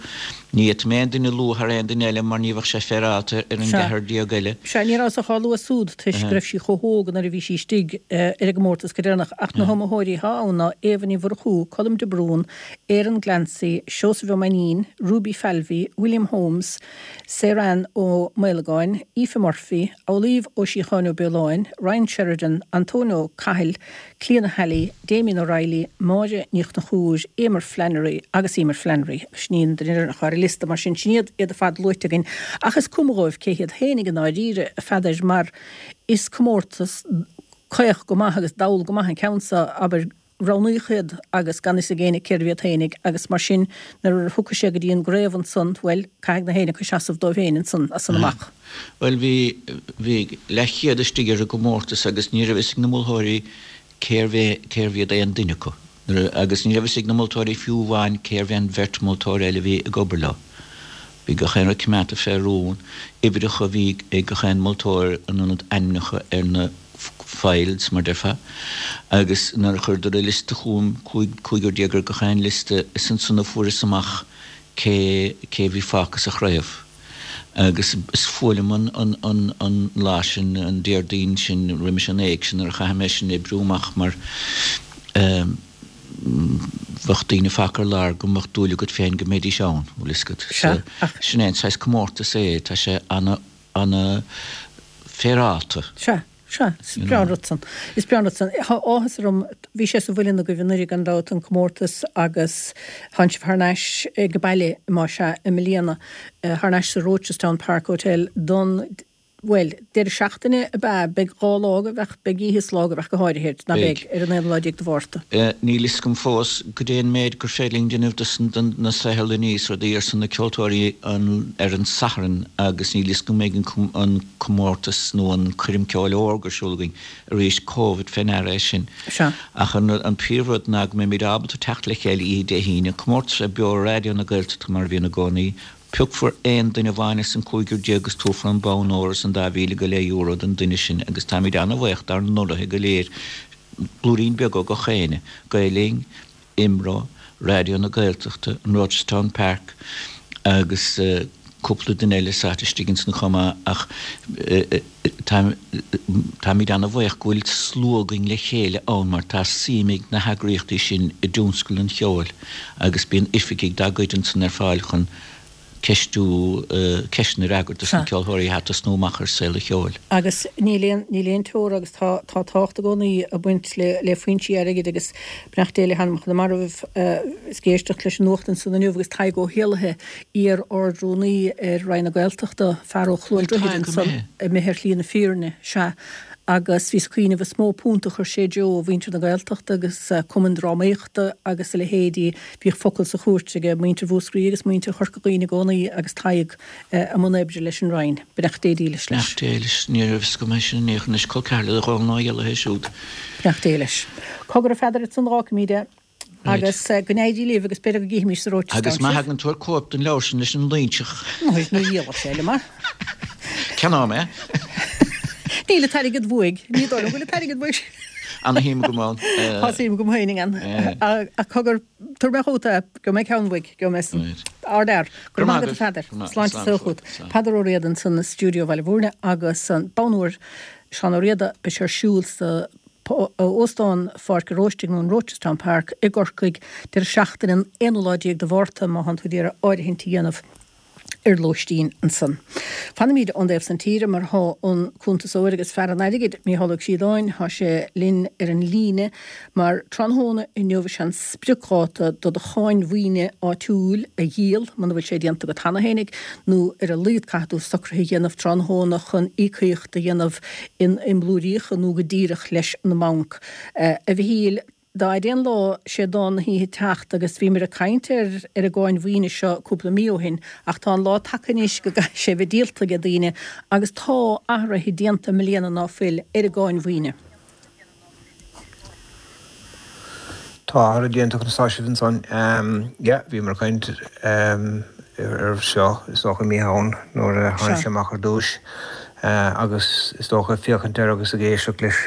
Ní fhéadfaidh mé aon duine a lua thar aon duine eile mar ní bheadh sé féaráilte ar an gceathrar eile. Sea, ní rabhas ach á lua súd toisc go raibh sí chomh hóg nuair a bhí sí istigh ar an gcomórtas go deireanach, ach na hiomaitheoirí atá ann ná Éabha Ní Mhurchú, Colm de Brún, Aaron Glancy, Seosamh Ó Mainnín, Ruby Falvey, William Holmes, Saorann Ó Maolagáin, Aoife Murphy, Amhlaoibh Ó Síocháin Ó Beoláin, Ryan Sheridan, Antóin Ó Cathail, Clíona Halley, Damien O'Reilly, Máire Ní Chonchúir, Eimear Flannery agus Eimear Flannery. Sin í an duine deireanach ar an liosta, mar sin, sin iad iad ar fad luaite againn. Ach is cuma dhóibh cé hiad féinig i ndáiríre, a Pheadair, mar is comórtas caoch go maith agus dall go maith an ceann so, abair, roghnaíodh iad agus gan fhios ag éinne cérbh iad féinig agus mar sin nuair a thiocfaidh sé go dtí an gcraobh ansan, bhuel, caithfidh na héinne acu seasamh dóibh féin ansan as san amach. Bhuel, bhí, bhí leathchéad istigh ar an gcomórtas agus ní raibh fhios ag na moltóirí cérbh é, cérbh iad aon duine acu. Nuair a, agus ní raibh fhios ag na moltóirí fiú amháin cérbh é an bheirt moltóir eile a bhí ag obair leo. Bhí gach aon rud coimeádta fé rún, uimhreacha a bhí ag gach aon moltóir in ionad ainmneacha ar na files, mar déarfá, agus nuair a chuireadar an liosta chugam, 15 ar gach aon liosta, is ansan a fuaireas amach cé cé a bhí fágtha sa chraobh. Agus is fuath liom an an an an lá sin, an Déardaoin sin roimis an éigse nuair a chaithfidh mé sin a oibriú amach mar eh, bheadh daoine fágtha ar lár go mbeadh dúil agat féin go mbeidís ann, bhfuil fhios agat. Sea, ach. Sin é an saghas comórtas é, tá sé ana, ana féaráilte. Sea, sea, is breá an rud san. Is breá an rud san. Tá áthas orm, bhí sé sa mhuileann agaibh anuraidh gan dabht, an comórtas agus tánn sibh thar n-ais ag baile, más ea, i mbliana, thar n-ais sa Rochestown Park Hotel don Bhuel, deireadh seachtaine ab ea? Beidh 2 lá agaibh ach beidh oíche is lá agaibh ach go háirithe, ná beidh, ar an aonú lá déag de Mhárta. Níl fhios agam fós goidé an méid gur féidir linn déanamh dos na saotharlannaí is rudaí ar son na ceoltóirí ar an Satharn agus níl fhios agam an mbeidh an comórtas nó an coirm ceoil órga ar siúl againn arís, Covid fé ndeara é sin. Sea. Ach an príomhrud ná go mbeimid ábalta teacht le chéile oíche Dé hAoine, comórtas a bheidh beo ar Raidió na Gaeltachta mar a bhíonn i gcónaí, Piocfar aon duine amháin as an gcúigear agus tabharfar an bonn óir is an dá mhíle go leith euro don duine sin agus táimid an-bhaoch dár n-urraithe go léir, blúirín beag ó gach éinne, Gael Linn, IMRO, Raidió na Gaeltachta, an Rochestown Park agus cúpla duine eile sáite istigh ansan chomh maith ach táimid an-bhaoch go bhfuil slua againn le chéile ann mar tá suim ag na heagraíochtaí sin i dtionscal an cheoil agus bíonn oifigigh dá gcuid ansan ar fáil chun ceistiú, ceisteanna a fhreagairt dos na ceoltóirí atá ag tosnú amach ar saol an cheoil. Agus níl aon, níl aon teora agus tá, tá tábhacht i gcónaí ag baint le, le foinsí airgid agus beannacht Dé le hanamcha na marbh, is ag éisteacht leis an nuacht ansan inniu agus Tadhg Ó hÉallaithe, iar-Ard-Rúnaí ar Roinn na Gaeltachta, fear ó Chluain Droichid ansan, imithe ar shlí na fírinne, sea. Agus bhíos ag cuimhneamh, is mó punt a chuir sé i dtreo mhuintir na Gaeltachta agus cumainn drámaíochta agus a leithéidí. Bhíodh focal sa chúirt aige muintir Mhúscraí agus muintir Chorca Dhuibhne i gcónaí agus Tadhg i mbun oibre leis an Roinn. Beannacht Dé dílis leis. Beannacht Dé leis. Ní raibh fhios agam é sin in aon chor anois. Col ceathar le Dónal Ó hÉallaithe siúd. Beannacht Dé leis. Cogar a Pheadair ansan fágfaimid é. Agus go n-éirí libh agus b'fhéidir go gcífimís sa Rochestown Agus má thagann tú tabhair cóip den leabhar sin leis an Loingseach. Ní dhíolfaidh sé liom é. Ceannóidh mé. Níl an t-airgead uaidh. Ní dóigh liom go bhfuil an t-airgead uaidh. Ana-shuim agam ann. Tá suim agam féin ann. Ach cogar, tabharfaidh mé chugat é, gheobhaidh mé ceann uaidh, gheobhaidh mé san. Ardfhear. Go raibh maith agat a Pheadair. Sláinte is saol chugat. Peadar Ó Riada ansan i stiúideo Bhaile Bhúirne agus an bonn óir Seán Ó Riada, beidh sé ar siúl sa Óstán Pháirc an Róistigh nó an Rochestown Park i gCorcaigh deireadh seachtaine an aonú lá déag de Mhárta má thánn tú ag iarraidh áirithint a dhéanamh ar lóistín ansan. Fanaimid ón dtaobh san tíre mar thá an cuntasóir agus fear an airgid, Mícheál Ó Críodáin, thá sé linn ar an líne mar tráthnóna inniu is é an spriocdháta do do cháin mhaoine áitiúil a dhíol, muna bhfuil sé déanta agat cheana fhéinig, nó ar a laghad caithfidh tú socruithe a dhéanamh tráthnóna chun íocaíocht a dhéanamh in i mblúiríocha nó go díreach leis an mbanc. A Mhichíl, dá fhaide an lá, sé dán na hoíche teacht agus bhíomar ag caint ar ar an gcáin mhaoine seo cúpla mí ó shin ach tá an lá tagtha anois go gcaithfidh sé bheith díolta ag daoine agus tá athruithe déanta i mbliana ná fuil ar an gcáin mhaoine. Tá athruithe déanta conas tá sibh ansan? Yeah, bhíomar ag caint air seo is dócha i mí Shamhain nuair a tháinig sé amach ar dtúis. Agus is dócha, féachaint air agus ag éisteacht leis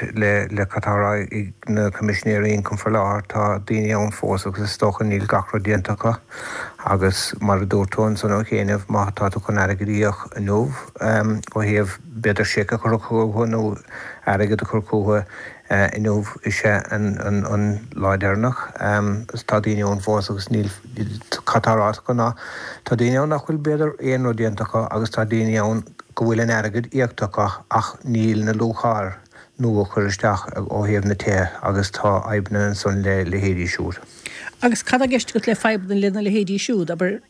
le cad tá á rá ag na Coimisinéirí Ioncaim faoi láthair, tá daoine ann fós agus is dócha níl gach rud déanta acu. Agus mar a dúirt tú ansan ó chianaibh, má tá tú chun airgead a íoc inniu ó thaobh b'fhéidir seic a chur chucu nó airgead a chur chucu inniu is ea an lá deireanach. Tá daoine ann fós agus níl, cad tá ráite acu ná tá daoine ann nach bhfuil b'fhéidir aon rud déanta acu agus tá daoine ann go bhfuil an airgead íoctha acu ach níl na luacháil nua curtha isteach ó thaobh na tithe agus tá fadhbanna ansan le leithéidí siúd. Agus cad tá i gceist agat le fadhbanna lena leithéidí siúd? Abair,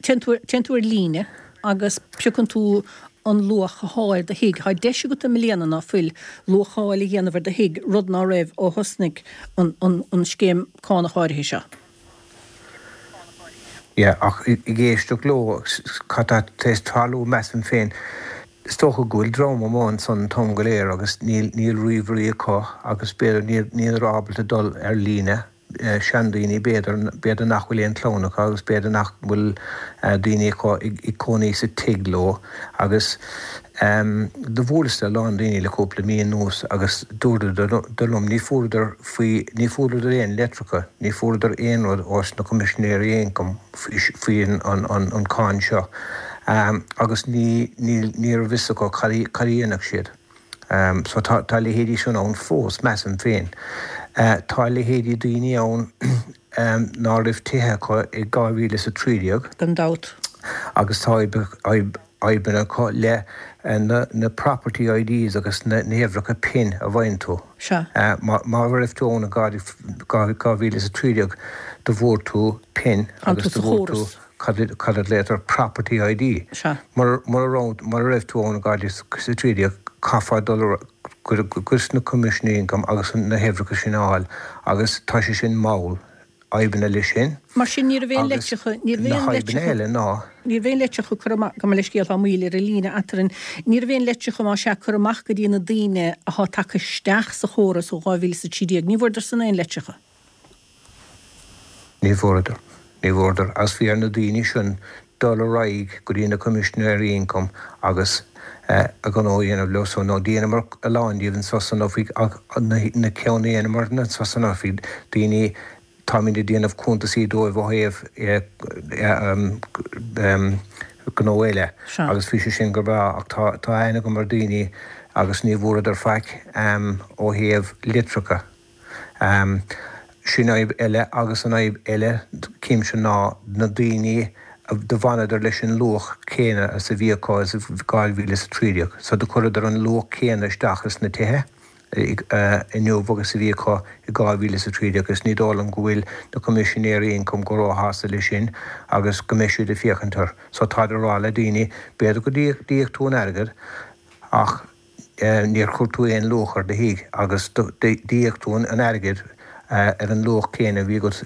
téann tú, téann tú ar líne agus piocann tú an luach athá ar do thigh. Tá deis agat i mbliana, ná fuil, luacháil a dhéanamh ar do thigh, rud ná raibh ó thosnaigh an, an, an scéim cánach áirithe seo. Yeah, ach ag éisteacht leo, cad tá tar éis tarlú, measaim féin, is dócha go bhfuil dream amuigh ansan an t-am go léir agus níl, níl ríomhairí acu agus b'fhéidir níl, níl ábalta dul ar líne, seandaoine b'fhéidir, b'fhéidir nach bhfuil aon chlann acu agus b'fhéidir nach bhfuil daoine acu ag cónaí sa tigh leo agus Do bhuaileas le a lán daoine le cúpla mí anuas agus dúradar liom ní fuaireadar faoi, ní fuaireadar aon leitreacha, ní fuaireadar aon rud ós na Coimisinéirí Ioncaim faoi an cáin seo agus ní, ní, ní raibh fhios acu cad a dhéanfadh siad. So tá, tá leithéidí sin ann fós, measaim féin. Tá leithéidí daoine ann ná raibh tithe acu i 2013. Gan dabht. Agus tá fadhbanna acu le na property IDs agus na huimhreacha pin a bhfaigheann tú. Sea. Má raibh tú ann i 2013 do bhfuair tú pin agus do bhfuair tú cad a ghlaotar property ID. Sea. Mura raibh tú ann i 2013 caithfeá dul go sna Coimisinéirí Ioncaim agus na huimhreacha sin a fháil agus tá sé sin mall. fhadhbanna leis sin. Mar sin, ní raibh aon Agus leitreacha, ní raibh na aon fadhbanna leitreacha, eile ná. ní raibh aon leitreacha curtha amach, gabh mo leithscéal, tá moill ar an líne eatarinn, ní raibh aon leitreacha, más ea, curtha amach go dtí na daoine athá tagtha isteach sa chóras ó 2013, ní bhfuaireadar san aon leitreacha. Ní bhfuaireadar, ní bhfuaireadar, agus bhí ar na daoine sin dul ar aghaidh go dtí na Coimisinéirí Ioncaim agus a ngnó a dhéanamh leo so, nó dheineamar a lán díobh anso san oifig ach na ceann a dheineamar anso san oifig, daoine, táimid ag déanamh cuntasaí dóibh ó thaobh gnó eile agus bhí sé sin go breá ach tá tá aithne agam ar daoine agus ní bhfuaireadar faic ó thaobh litreacha. Sin fhadhb eile agus an fhadhb eile címse ná na daoine do bhfanadar leis an luach céanna is a bhí acu is 2013 so do chuireadar an luach céanna isteach is na tithe inniu agus a bhí acu i 2013 agus ní dóigh liom go bhfuil na Coimisinéirí Ioncaim go róshásta leis sin agus go mbeidh siad ag féachaint air so táid ag rá le daoine b'fhéidir go d'íoc tú an airgead ach níor chuir tú aon luach ar do thigh agus d'íoc tú an airgead ar an luach céanna a bhí agat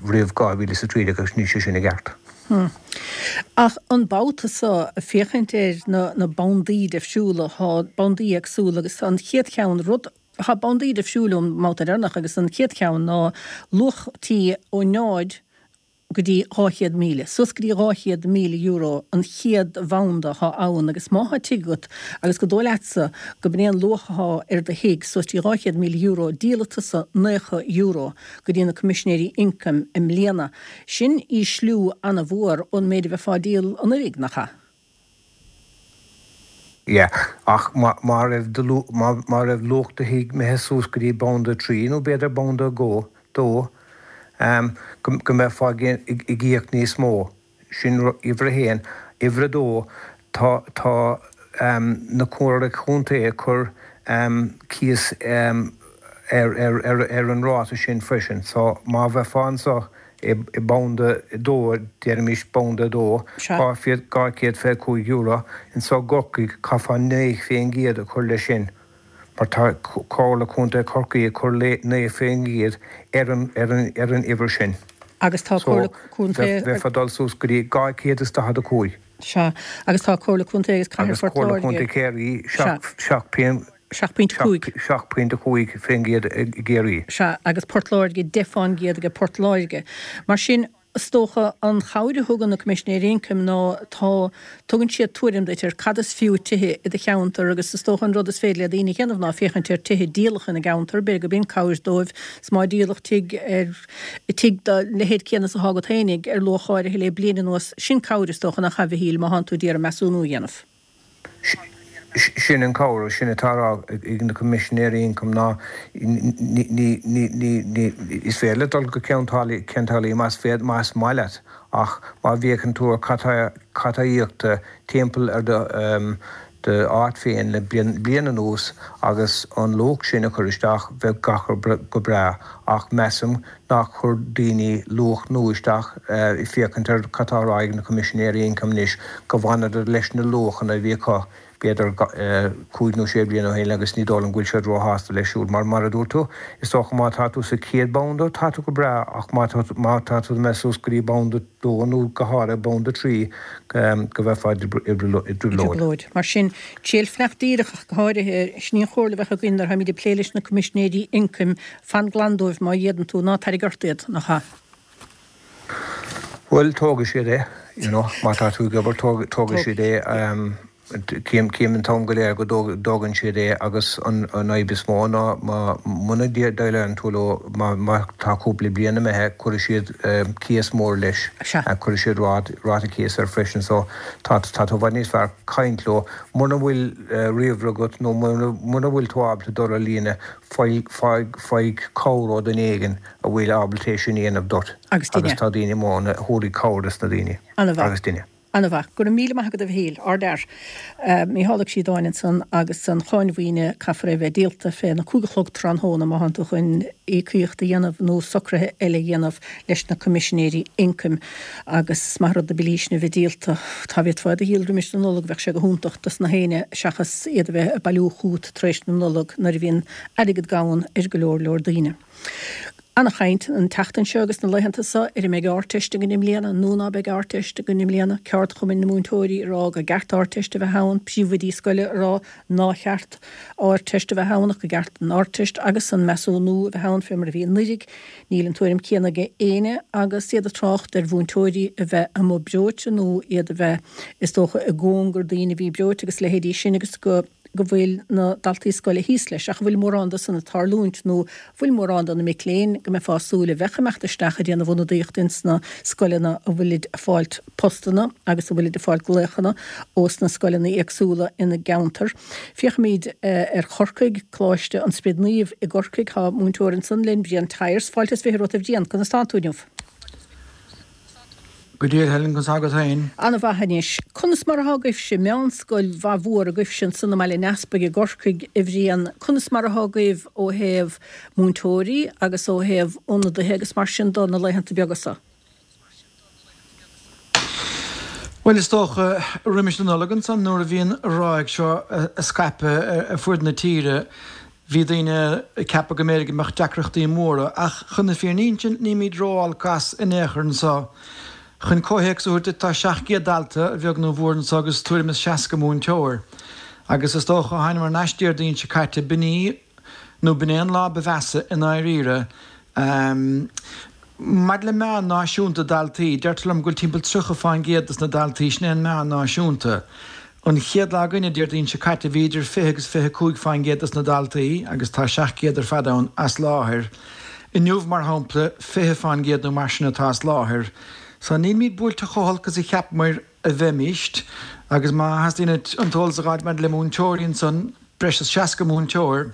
roimh 2013 agus níl sé sin i gceart. Ach an babhta seo, féachaint ar na bandaí difriúla, tá bandaí éagsúla agus an chéad cheann, rud, tá bandaí difriúla ón mbabhta deireanach agus an chéad cheann ná luach tí ó 0 go dtí 200,000, suas go dtí €200,000 an chéad bhanda athá ann agus má thá tigh agat agus go dóigh leatsa go b'in é an luach athá ar do thigh, suas dtí €200,000, díolfaidh tusa €90 go dtí na Coimisinéirí Ioncaim i mbliana. Sin ísliú ana-mhór ón méid a bheifeá ag díol anuiridh, nach ea? Yeah, ach má raibh do, má raibh luach do thigh imithe suas go dtí banda 3 nó b'fhéidir banda 2, dó, go mbeifeá ag íoc níos mó. Sin uimhir a haon. Uimhir a dó, tá, tá na Comhairle Contae ag cur cíos ar, ar, ar, ar an ráta sin freisin. So má bheifeá anso i mbanda 2, déarfaimis banda 2, €225, anso i gCorcaigh caithfeá 9% a chur leis sin mar tá Comhairle Contae Chorcaí ag cur 9% ar an ar an ar an uimhir sin. Agus tá So Comhairle Contae. bheifeá ag dul suas go dtí 245. Sea. Agus tá Comhairle Contae agus Cathair Agus Phort Comhairle Láirge. Contae Chiarraí Sea. 7 7.5. 7.5% i gCiarraí. Sea, agus Port Láirge 10% aige Port Láirge. Mar sin. Is dócha an chabhair a thugann na Coimisinéirí Ioncaim ná tá, tugann siad tuairim duit ar cad is fiú tithe i do cheantar agus is dócha an rud is féidir le daoine a dhéanamh ná féachaint ar tithe díolacha ina gceantar, b'fhéidir go b'in cabhair dóibh 's má díoladh tigh ar, tigh dá leithéid céanna is atá agat fhéinig ar luach áirithe le bliain anuas, sin cabhair is dócha nach ea a Mhichíl má thánn tú d'iarraidh measúnú a dhéanamh. Sin an cabhair, sin atá á rá ag na Coimisinéirí Ioncaim ná ní, is féidir leat dul go Ceann tSáile más féidir, más maith leat ach má bhféachann tú ar cad tá íoctha timpeall ar do áit féin le bliain anuas agus an luach sin a chur isteach bheadh gach rud go breá ach measaim nár chuir daoine luach nua isteach, ag féachaint ar cad tá á rá ag na Coimisinéirí Ioncaim anois, go bhfanadar leis na luachanna a bhí acu b'fhéidir cúig nó sé bliana ó shin agus ní dóigh liom go bhfuil siad róshásta leis siúd mar, mar a dúirt tú, is dócha má tá tú sa chéad banda tá tú go breá ach má má tá tú imithe suas go dtí banda dó nó go háirithe banda trí go mbeifeá i dtrioblóid. Mar sin, triail fanacht díreach ach go háirithe, sin í an chomhairle a bheadh againn nuair a tháimid ag plé leis na Coimisinéirí Ioncaim, Fan glan dóibh má fhéadann tú, ná tarraig ort iad, nach ea? Bhuel, tógfaidh siad é, you know, má tá tú ag obair, tógfaidh siad é. Cím an t-am go léir go dtógann siad é agus an fhadhb is mó ná muna ndéileálann tú leo, má tá cúpla bliain imithe, cuirfidh siad cíos mór leis, cuirfidh siad ráta cíos air freisin so tá tú i bhfad níos fearr caint leo. Muna bhfuil ríomhaire agat nó muna bhfuil tú ábalta dul ar líne, Faigh cabhair ó duine éigin a bhfuil ábalta é sin a dhéanamh duit. Agus duine. Agus tá daoine amuigh ann a thabharfaidh cabhair dos na daoine. Ana-mhaith. Agus duine. Ana-mhaith. Go raibh míle maith agat a Mhichíl. Ardfhear. Mícheál Ó Críodáin ansan agus an cháin mhaoine caithfear é a bheith díolta fé na cúig a chlog tráthnóna má thánn tú chun íocaíocht a dhéanamh nó socruithe eile a dhéanamh leis na Coimisinéirí Ioncaim. Agus is maith an rud na billí sin a bheith díolta. Dá bhféadfá iad a dhíol roimis na Nollag bheadh sé go hiontach dos na héinne seachas iad a bheith ag bailiú chugat tar éis na Nollag nuair a bhíonn airgead gann ar go leor leor daoine. Ana-chaint an tseachtain seo agus na laethanta seo ar an mbeidh Ardteist againn i mbliana nó ná beidh Ardteist againn i mbliana, ceardchumainn na múinteoirí ag rá go gceart Ardteist a bheith ann, príomhoidí scoile ag rá ná cheart Ardteist a bheith ann ach go gceart an Ardteist agus an measúnú a bheith ann fé mar a bhí anuiridh. Níl an tuairim céanna ag éinne agus iad ag trácht ar mhúinteoirí a bheith amuigh breoite nó iad a bheith is dócha i gcóngar daoine a bhí breoite agus leithéidí sin agus go go bhfuil na daltaí scoile thíos leis, ach an bhfuil mórán de san ag tarlúint nó an bhfuil mórán de na mic léinn go mbeifeá ag súil a bheadh ag imeacht isteach ag déanamh ionadaíocht ins na scoileanna a bhfuilid ag fáilt postanna agus a bhfuilid ag fáilt glaochanna ós na scoileanna éagsúla ina gceantar. Féachfaimid ar Chorcaigh, Coláiste an Sprid Naoimh i gCorcaigh. Tá múinteoir ansan linn, Brian Tyers. Fáilte is 20 romhat a Bhriain, conas tánn tú inniu? Go diail Helen, conas tá agat féin? Ana-mhaith anois. Conas mar athá agaibhse, meánscoil mhaith mhór agaibhse ansan i mBaile an Easpaig i gCorcaigh, a Bhriain, conas mar athá agaibh ó thaobh múinteoirí agus ó thaobh ionadaithe agus mar sin do na laethanta beaga so? Bhuel, is dócha, roimis na Nollag ansan nuair a bhí an ráig seo ag scaipeadh ar fuaid na tíre, Bhí daoine ag ceapadh go mb'fhéidir go mbeadh deacrachtaí móra, ach chun na fírinne a insint, nílimid ró-olc as in aon chor anseo. Chun comhthéacs a thabhairt duit, tá 700 dalta, a bheag nó a mhór, anseo agus tuairim is 60 múinteoir. Agus is dócha, ó thánamar thar n-ais Déardaoin seo caite, b'in í, nó b'in é an lá ba mheasa i ndáiríre. Maidir le meán náisiúnta daltaí, deirtear liom go bhfuil timpeall 30 fán gcéad dos na daltaí, sin é an meán náisiúnta. An chéad lá againne, Déardaoin seo caite, bhí idir 20 agus 25 fán gcéad dos na daltaí, agus tá 700 ar fad ann, as láthair. Inniu, mar shampla, 20 fán gcéad nó mar sin atá as láthair. So nílimid buailte chomh holc is a cheapamair a bheimíst. Agus má theastaíonn uait an t-eolas a dh'fháilt maidir le múinteoirí ansan, breis is 60 múinteoir.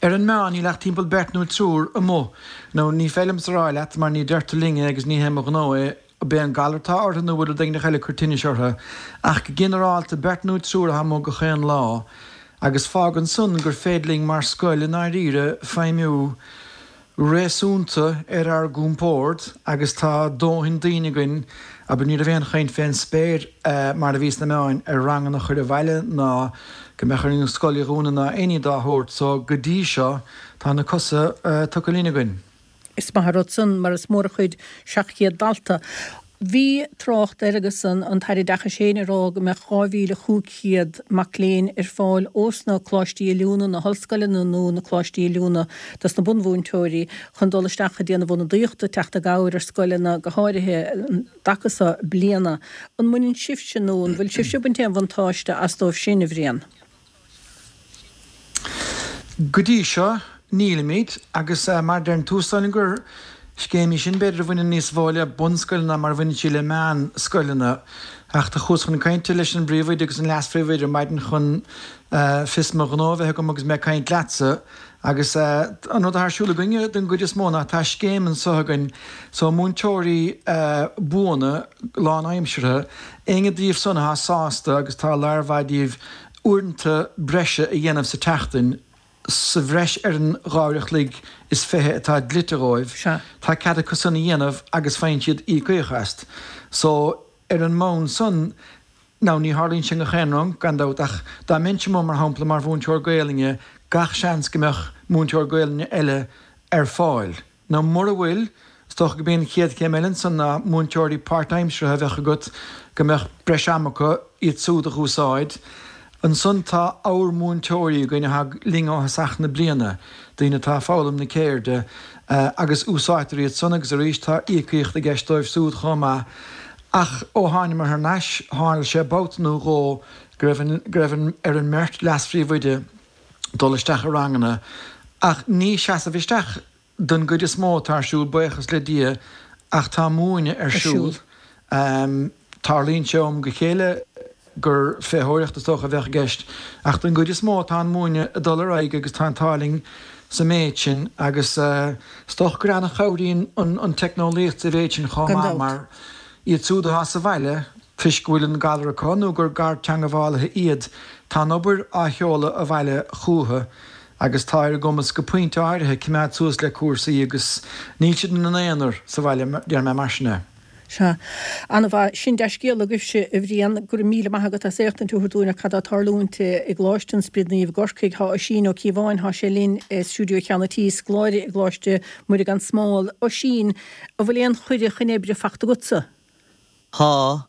Ar an meán, níl ach timpeall beirt nó triúr amuigh. Now, ní féidir liomsa a rá leat, mar ní deirtear linn é agus ní hé mo ghnó é, ab é an galar atá orthu nó bhfuil rud éigin eile ag cur tinnis orthu. Ach go ginearálta, beirt nó triúr atá amuigh gach aon lá. Agus fágann san gur féidir linn mar scoil i ndáiríre feidhmiú réasúnta ar ár gcompord agus tá dóthain daoine againn, abair ní raibh aon chaint fén spéir mar a bhí sna meáin ar ranganna a chur abhaile ná go mbeadh orainn an scoil a dhúnadh ná aon ní dá shórt so go dtí seo tá na cosa tugtha linn againn. Is maith an rud san mar is mór an chuid 700 dalta. Bhí trácht air agus an tAire Oideachais féin ag rá go mbeadh 2,500 mac léinn ar fáil ós na coláistí oiliúna, na hollscoileanna nó na coláistí oiliúna dos na bunmhúinteoirí chun dul isteach ag déanamh ionadaíochta, teacht i gcabhair ar scoileanna go háirithe an dtaca so bliana. An mbaineann sibhse nó an bhfuil sibhse ag baint aon bhuntáiste as dóibh sin, a Bhriain? Go dtí seo, nílimid, agus mar a deireann tú, is dóigh liom gur scéim í sin, b'fhéidir, a bhaineann níos mó le bunscoileanna ná mar a bhaineann sí le meánscoileanna. Ach do chuas chun cainte leis an bpríomhoide agus an leas-phríomhoide ar maidin chun fios mo ghnó a bheith agam agus mé ag caint leatsa. Agus an rud atá ar siúl againne den gcuid is mó ná tá scéim anso againn so múinteoirí buana, lánaimseartha, éinne díobh san atá sásta agus tá lear mhaith díobh uaireanta breise a dhéanamh sa tseachtain, sa bhreis ar an 2 uair a chloig is 20 atá dlite dhóibh, tá cead acu san a dhéanamh agus faigheann siad íocaíocht as. So, ar an mbonn san, now ní tharlaíonn sé i ngach aon rang, gan dabht, ach dá mbeinnse amuigh, mar shampla, mar mhúinteoir Gaelainne, gach seans go mbeadh múinteoir Gaelainne eile ar fáil. Nó mura bhfuil, is dócha go b'é an chéad chéim eile ansan ná múinteoirí páirtaimseartha a bheadh agat go mbeadh breis ama acu iad súd a dh'úsáid. Ansan tá abhar-mhúinteoirí againn atá linn ó thosach na bliana, daoine atá ag foghlaim na ceirde, agus úsáidtear iad san agus arís tá íocaíocht i gceist dóibh súd chomh maith. Ach ó thánamar thar n-ais, tharla sé babhta nó dhó go raibh an, go raibh an, ar an mbeirt leas-phríomhoide dul isteach i ranganna, ach ní seasamh isteach don gcuid is mó atá ar siúl, buíochas le Dia, ach tá múineadh ar siúl. Tarlaíonn sé ó am go chéile gur féitheoireacht is dócha a bheadh i gceist, ach don gcuid is mó tá an múineadh ag dul ar aghaidh agus tá an t-ádh linn sa méid sin agus is dócha gur an-chabhraíonn an teicneolaíocht sa mhéid sin chomh maith mar iad siúd atá sa bhaile, Toisc go bhfuil an galar acu nó gur garteangabhálaithe iad, tá an obair á sheoladh abhaile chucu agus tá ar a gcumas go pointe áirithe coimeád suas le cúrsaí agus níl siad ina n-aonar sa bhaile, déarfaidh mé mar sin é. Sea. An-mhaith. Sin dea-scéala agaibhse, a Bhriain. Go raibh míle maith agat as éachtaint a thabhairt dúinn ar cad tá ag tarlúint i gColáiste an Spioraid Naoimh i gCorcaigh. Tá Oisín Ó Cíobháin, tá sé linn i stiúideo Cheann an Tí, scoláire i gColáiste Muire gan Smál. Oisín, an bhfuil aon chuireadh chun oibre fachta agatsa? Tá.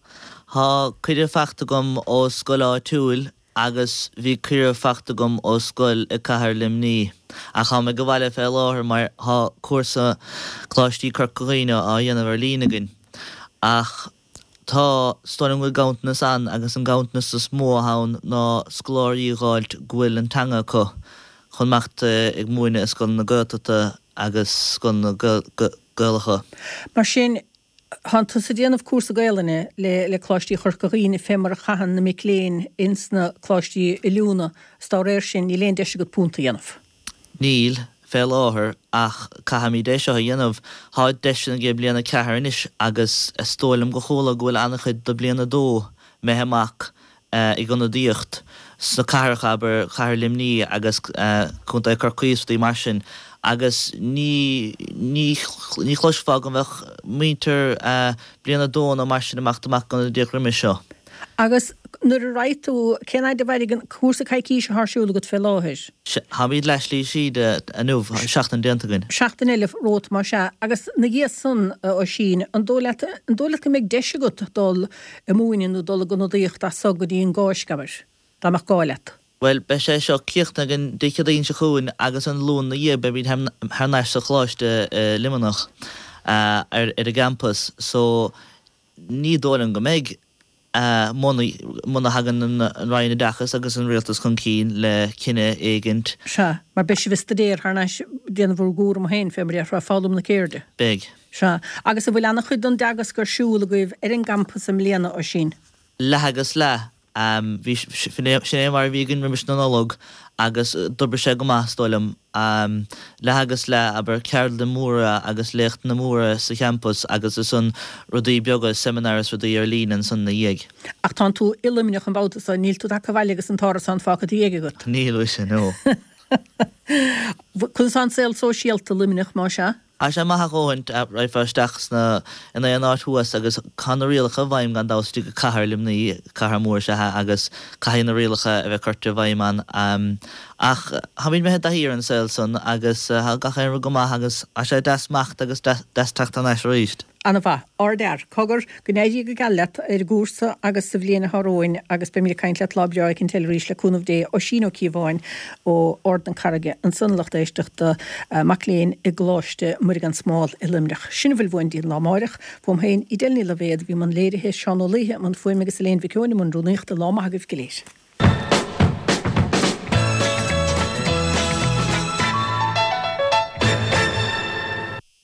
Tá cuireadh fachta agam ó scoil áitiúil agus bhí cuireadh fachta agam ó scoil i cathair Luimní. Ach táim ag an bhaile fé láthair mar tá cúrsa Coláistí Corca Dhuibhne á dhéanamh ar líne againn. Ach tá, is dóigh liom go bhfuil ganntanas ann agus an ganntanas is mó atá ann ná scoláirí a dh'fháilt go bhfuil an teanga acu chun imeacht ag múineadh i scoileanna Gaeltachta agus scoileanna Gaelacha. Mar sin, Tánn tusa ag déanamh cúrsa Gaelainne le le Coláistí Chorca Dhuibhne fé mar a chaitheann na mic léinn ins na coláistí oiliúna 's dá réir sin níl aon deis agat punt a dhéanamh. Níl, fé láthair, ach caithfimid é seo a dhéanamh. Tá deiseanna ag bliain 4 anois agus is dóigh liom go chuala go bhfuil an-chuid do bliain 2 imithe amach ag ionadaíocht sna cathracha, abair, Cathair Luimní agus Contae Chorcaí is rudaí mar sin agus ní, ní, ní chloisfeá go mbeadh muintir bliain a dó nó mar sin ag imeacht amach ag ionadaíocht roimis seo. Agus nuair a raghaidh tú, cén fhaid a mhairfidh an cúrsa coicíse atá ar siúl agat fé láthair? Táimid leath slí síd inniu, seachtain déanta againn. Seachtain eile romhat más ea. Agus 'na dhiaidh san, a Oisín, an dóigh leat, an dóigh leat go mbeidh deis agat dul ag múineadh nó dul ag ionadaíocht as so go dtí an gCáisc, abair, dá mbeadh gá leat. Bhuel, beidh sé seo críochnaithe againn Dé Céadaoin seo chugainn agus an Luan 'na dhiaidh beimid thar n-ais sa choláiste i Luimneach ar ar an gcampas so ní dóigh liom go mbeidh muna muna thagann an Roinn Oideachais agus an Rialtas chun cinn le cinneadh éigint. Sea, mar beidh sibh ag staidéar thar n-ais ag déanamh bhur gcúram féin fé mar a déarfá, foghlaim na ceirde. Beidh. Sea. Agus an bhfuil an-chuid don dteagasc ar siúl agaibh ar an gcampas i mbliana, Oisín? Leath agus leath. Bhí, sin é mar a bhí againn roimis na Nollag agus d'oibrigh sé go maith, is dóigh liom. Leath agus leath, abair, ceardlanna móra agus léachtanna móra sa champas agus ansan rudaí beaga, seimineáir is rudaí ar líne ansan ina dhiaidh. Ach tánn tú i Luimneach an babhta so, níl tú tagtha abhaile agus an t-árasán fágtha i do dhiaidh agat? Níl, mhuise, no. Conas tá an saol sóisialta i Luimneach, más ea? Tá sé maith a dhóthaint, raghfá isteach sna, in aon áit thuas agus tá na rialacha i bhfeidhm gan dabht istigh i cathair Luimní, cathair mór is ea é agus caithfidh na rialacha a bheith curtha i bhfeidhm ann. Ach táimid imithe i dtaithí ar an saol san agus tá gach aon rud go maith agus tá sé deas imeacht agus deas teacht thar n-ais arís. Ana-mhaith. Ardfhear. Cogar, go n-éirí go geal leat ar an gcúrsa agus sa bhliain atá romhainn agus beimid ag caint leat lá breá éicint eile arís le cúnamh Dé. Oisín Ó Cíobháin ó Ard na Carraige ansan a lucht éisteachta, mac léinn i gColáiste Muire gan Smál i Luimneach. Sin a bhfuil uainn go dtí an lá amáireach. Fúm féin, Edel Ní Loibhéad a bhí i mbun léirithe, Seán Ó Laoithe i mbun fuaime agus Elaine Mhic Eoin i mbun rúnaíochta. Lá maith agaibh go léir.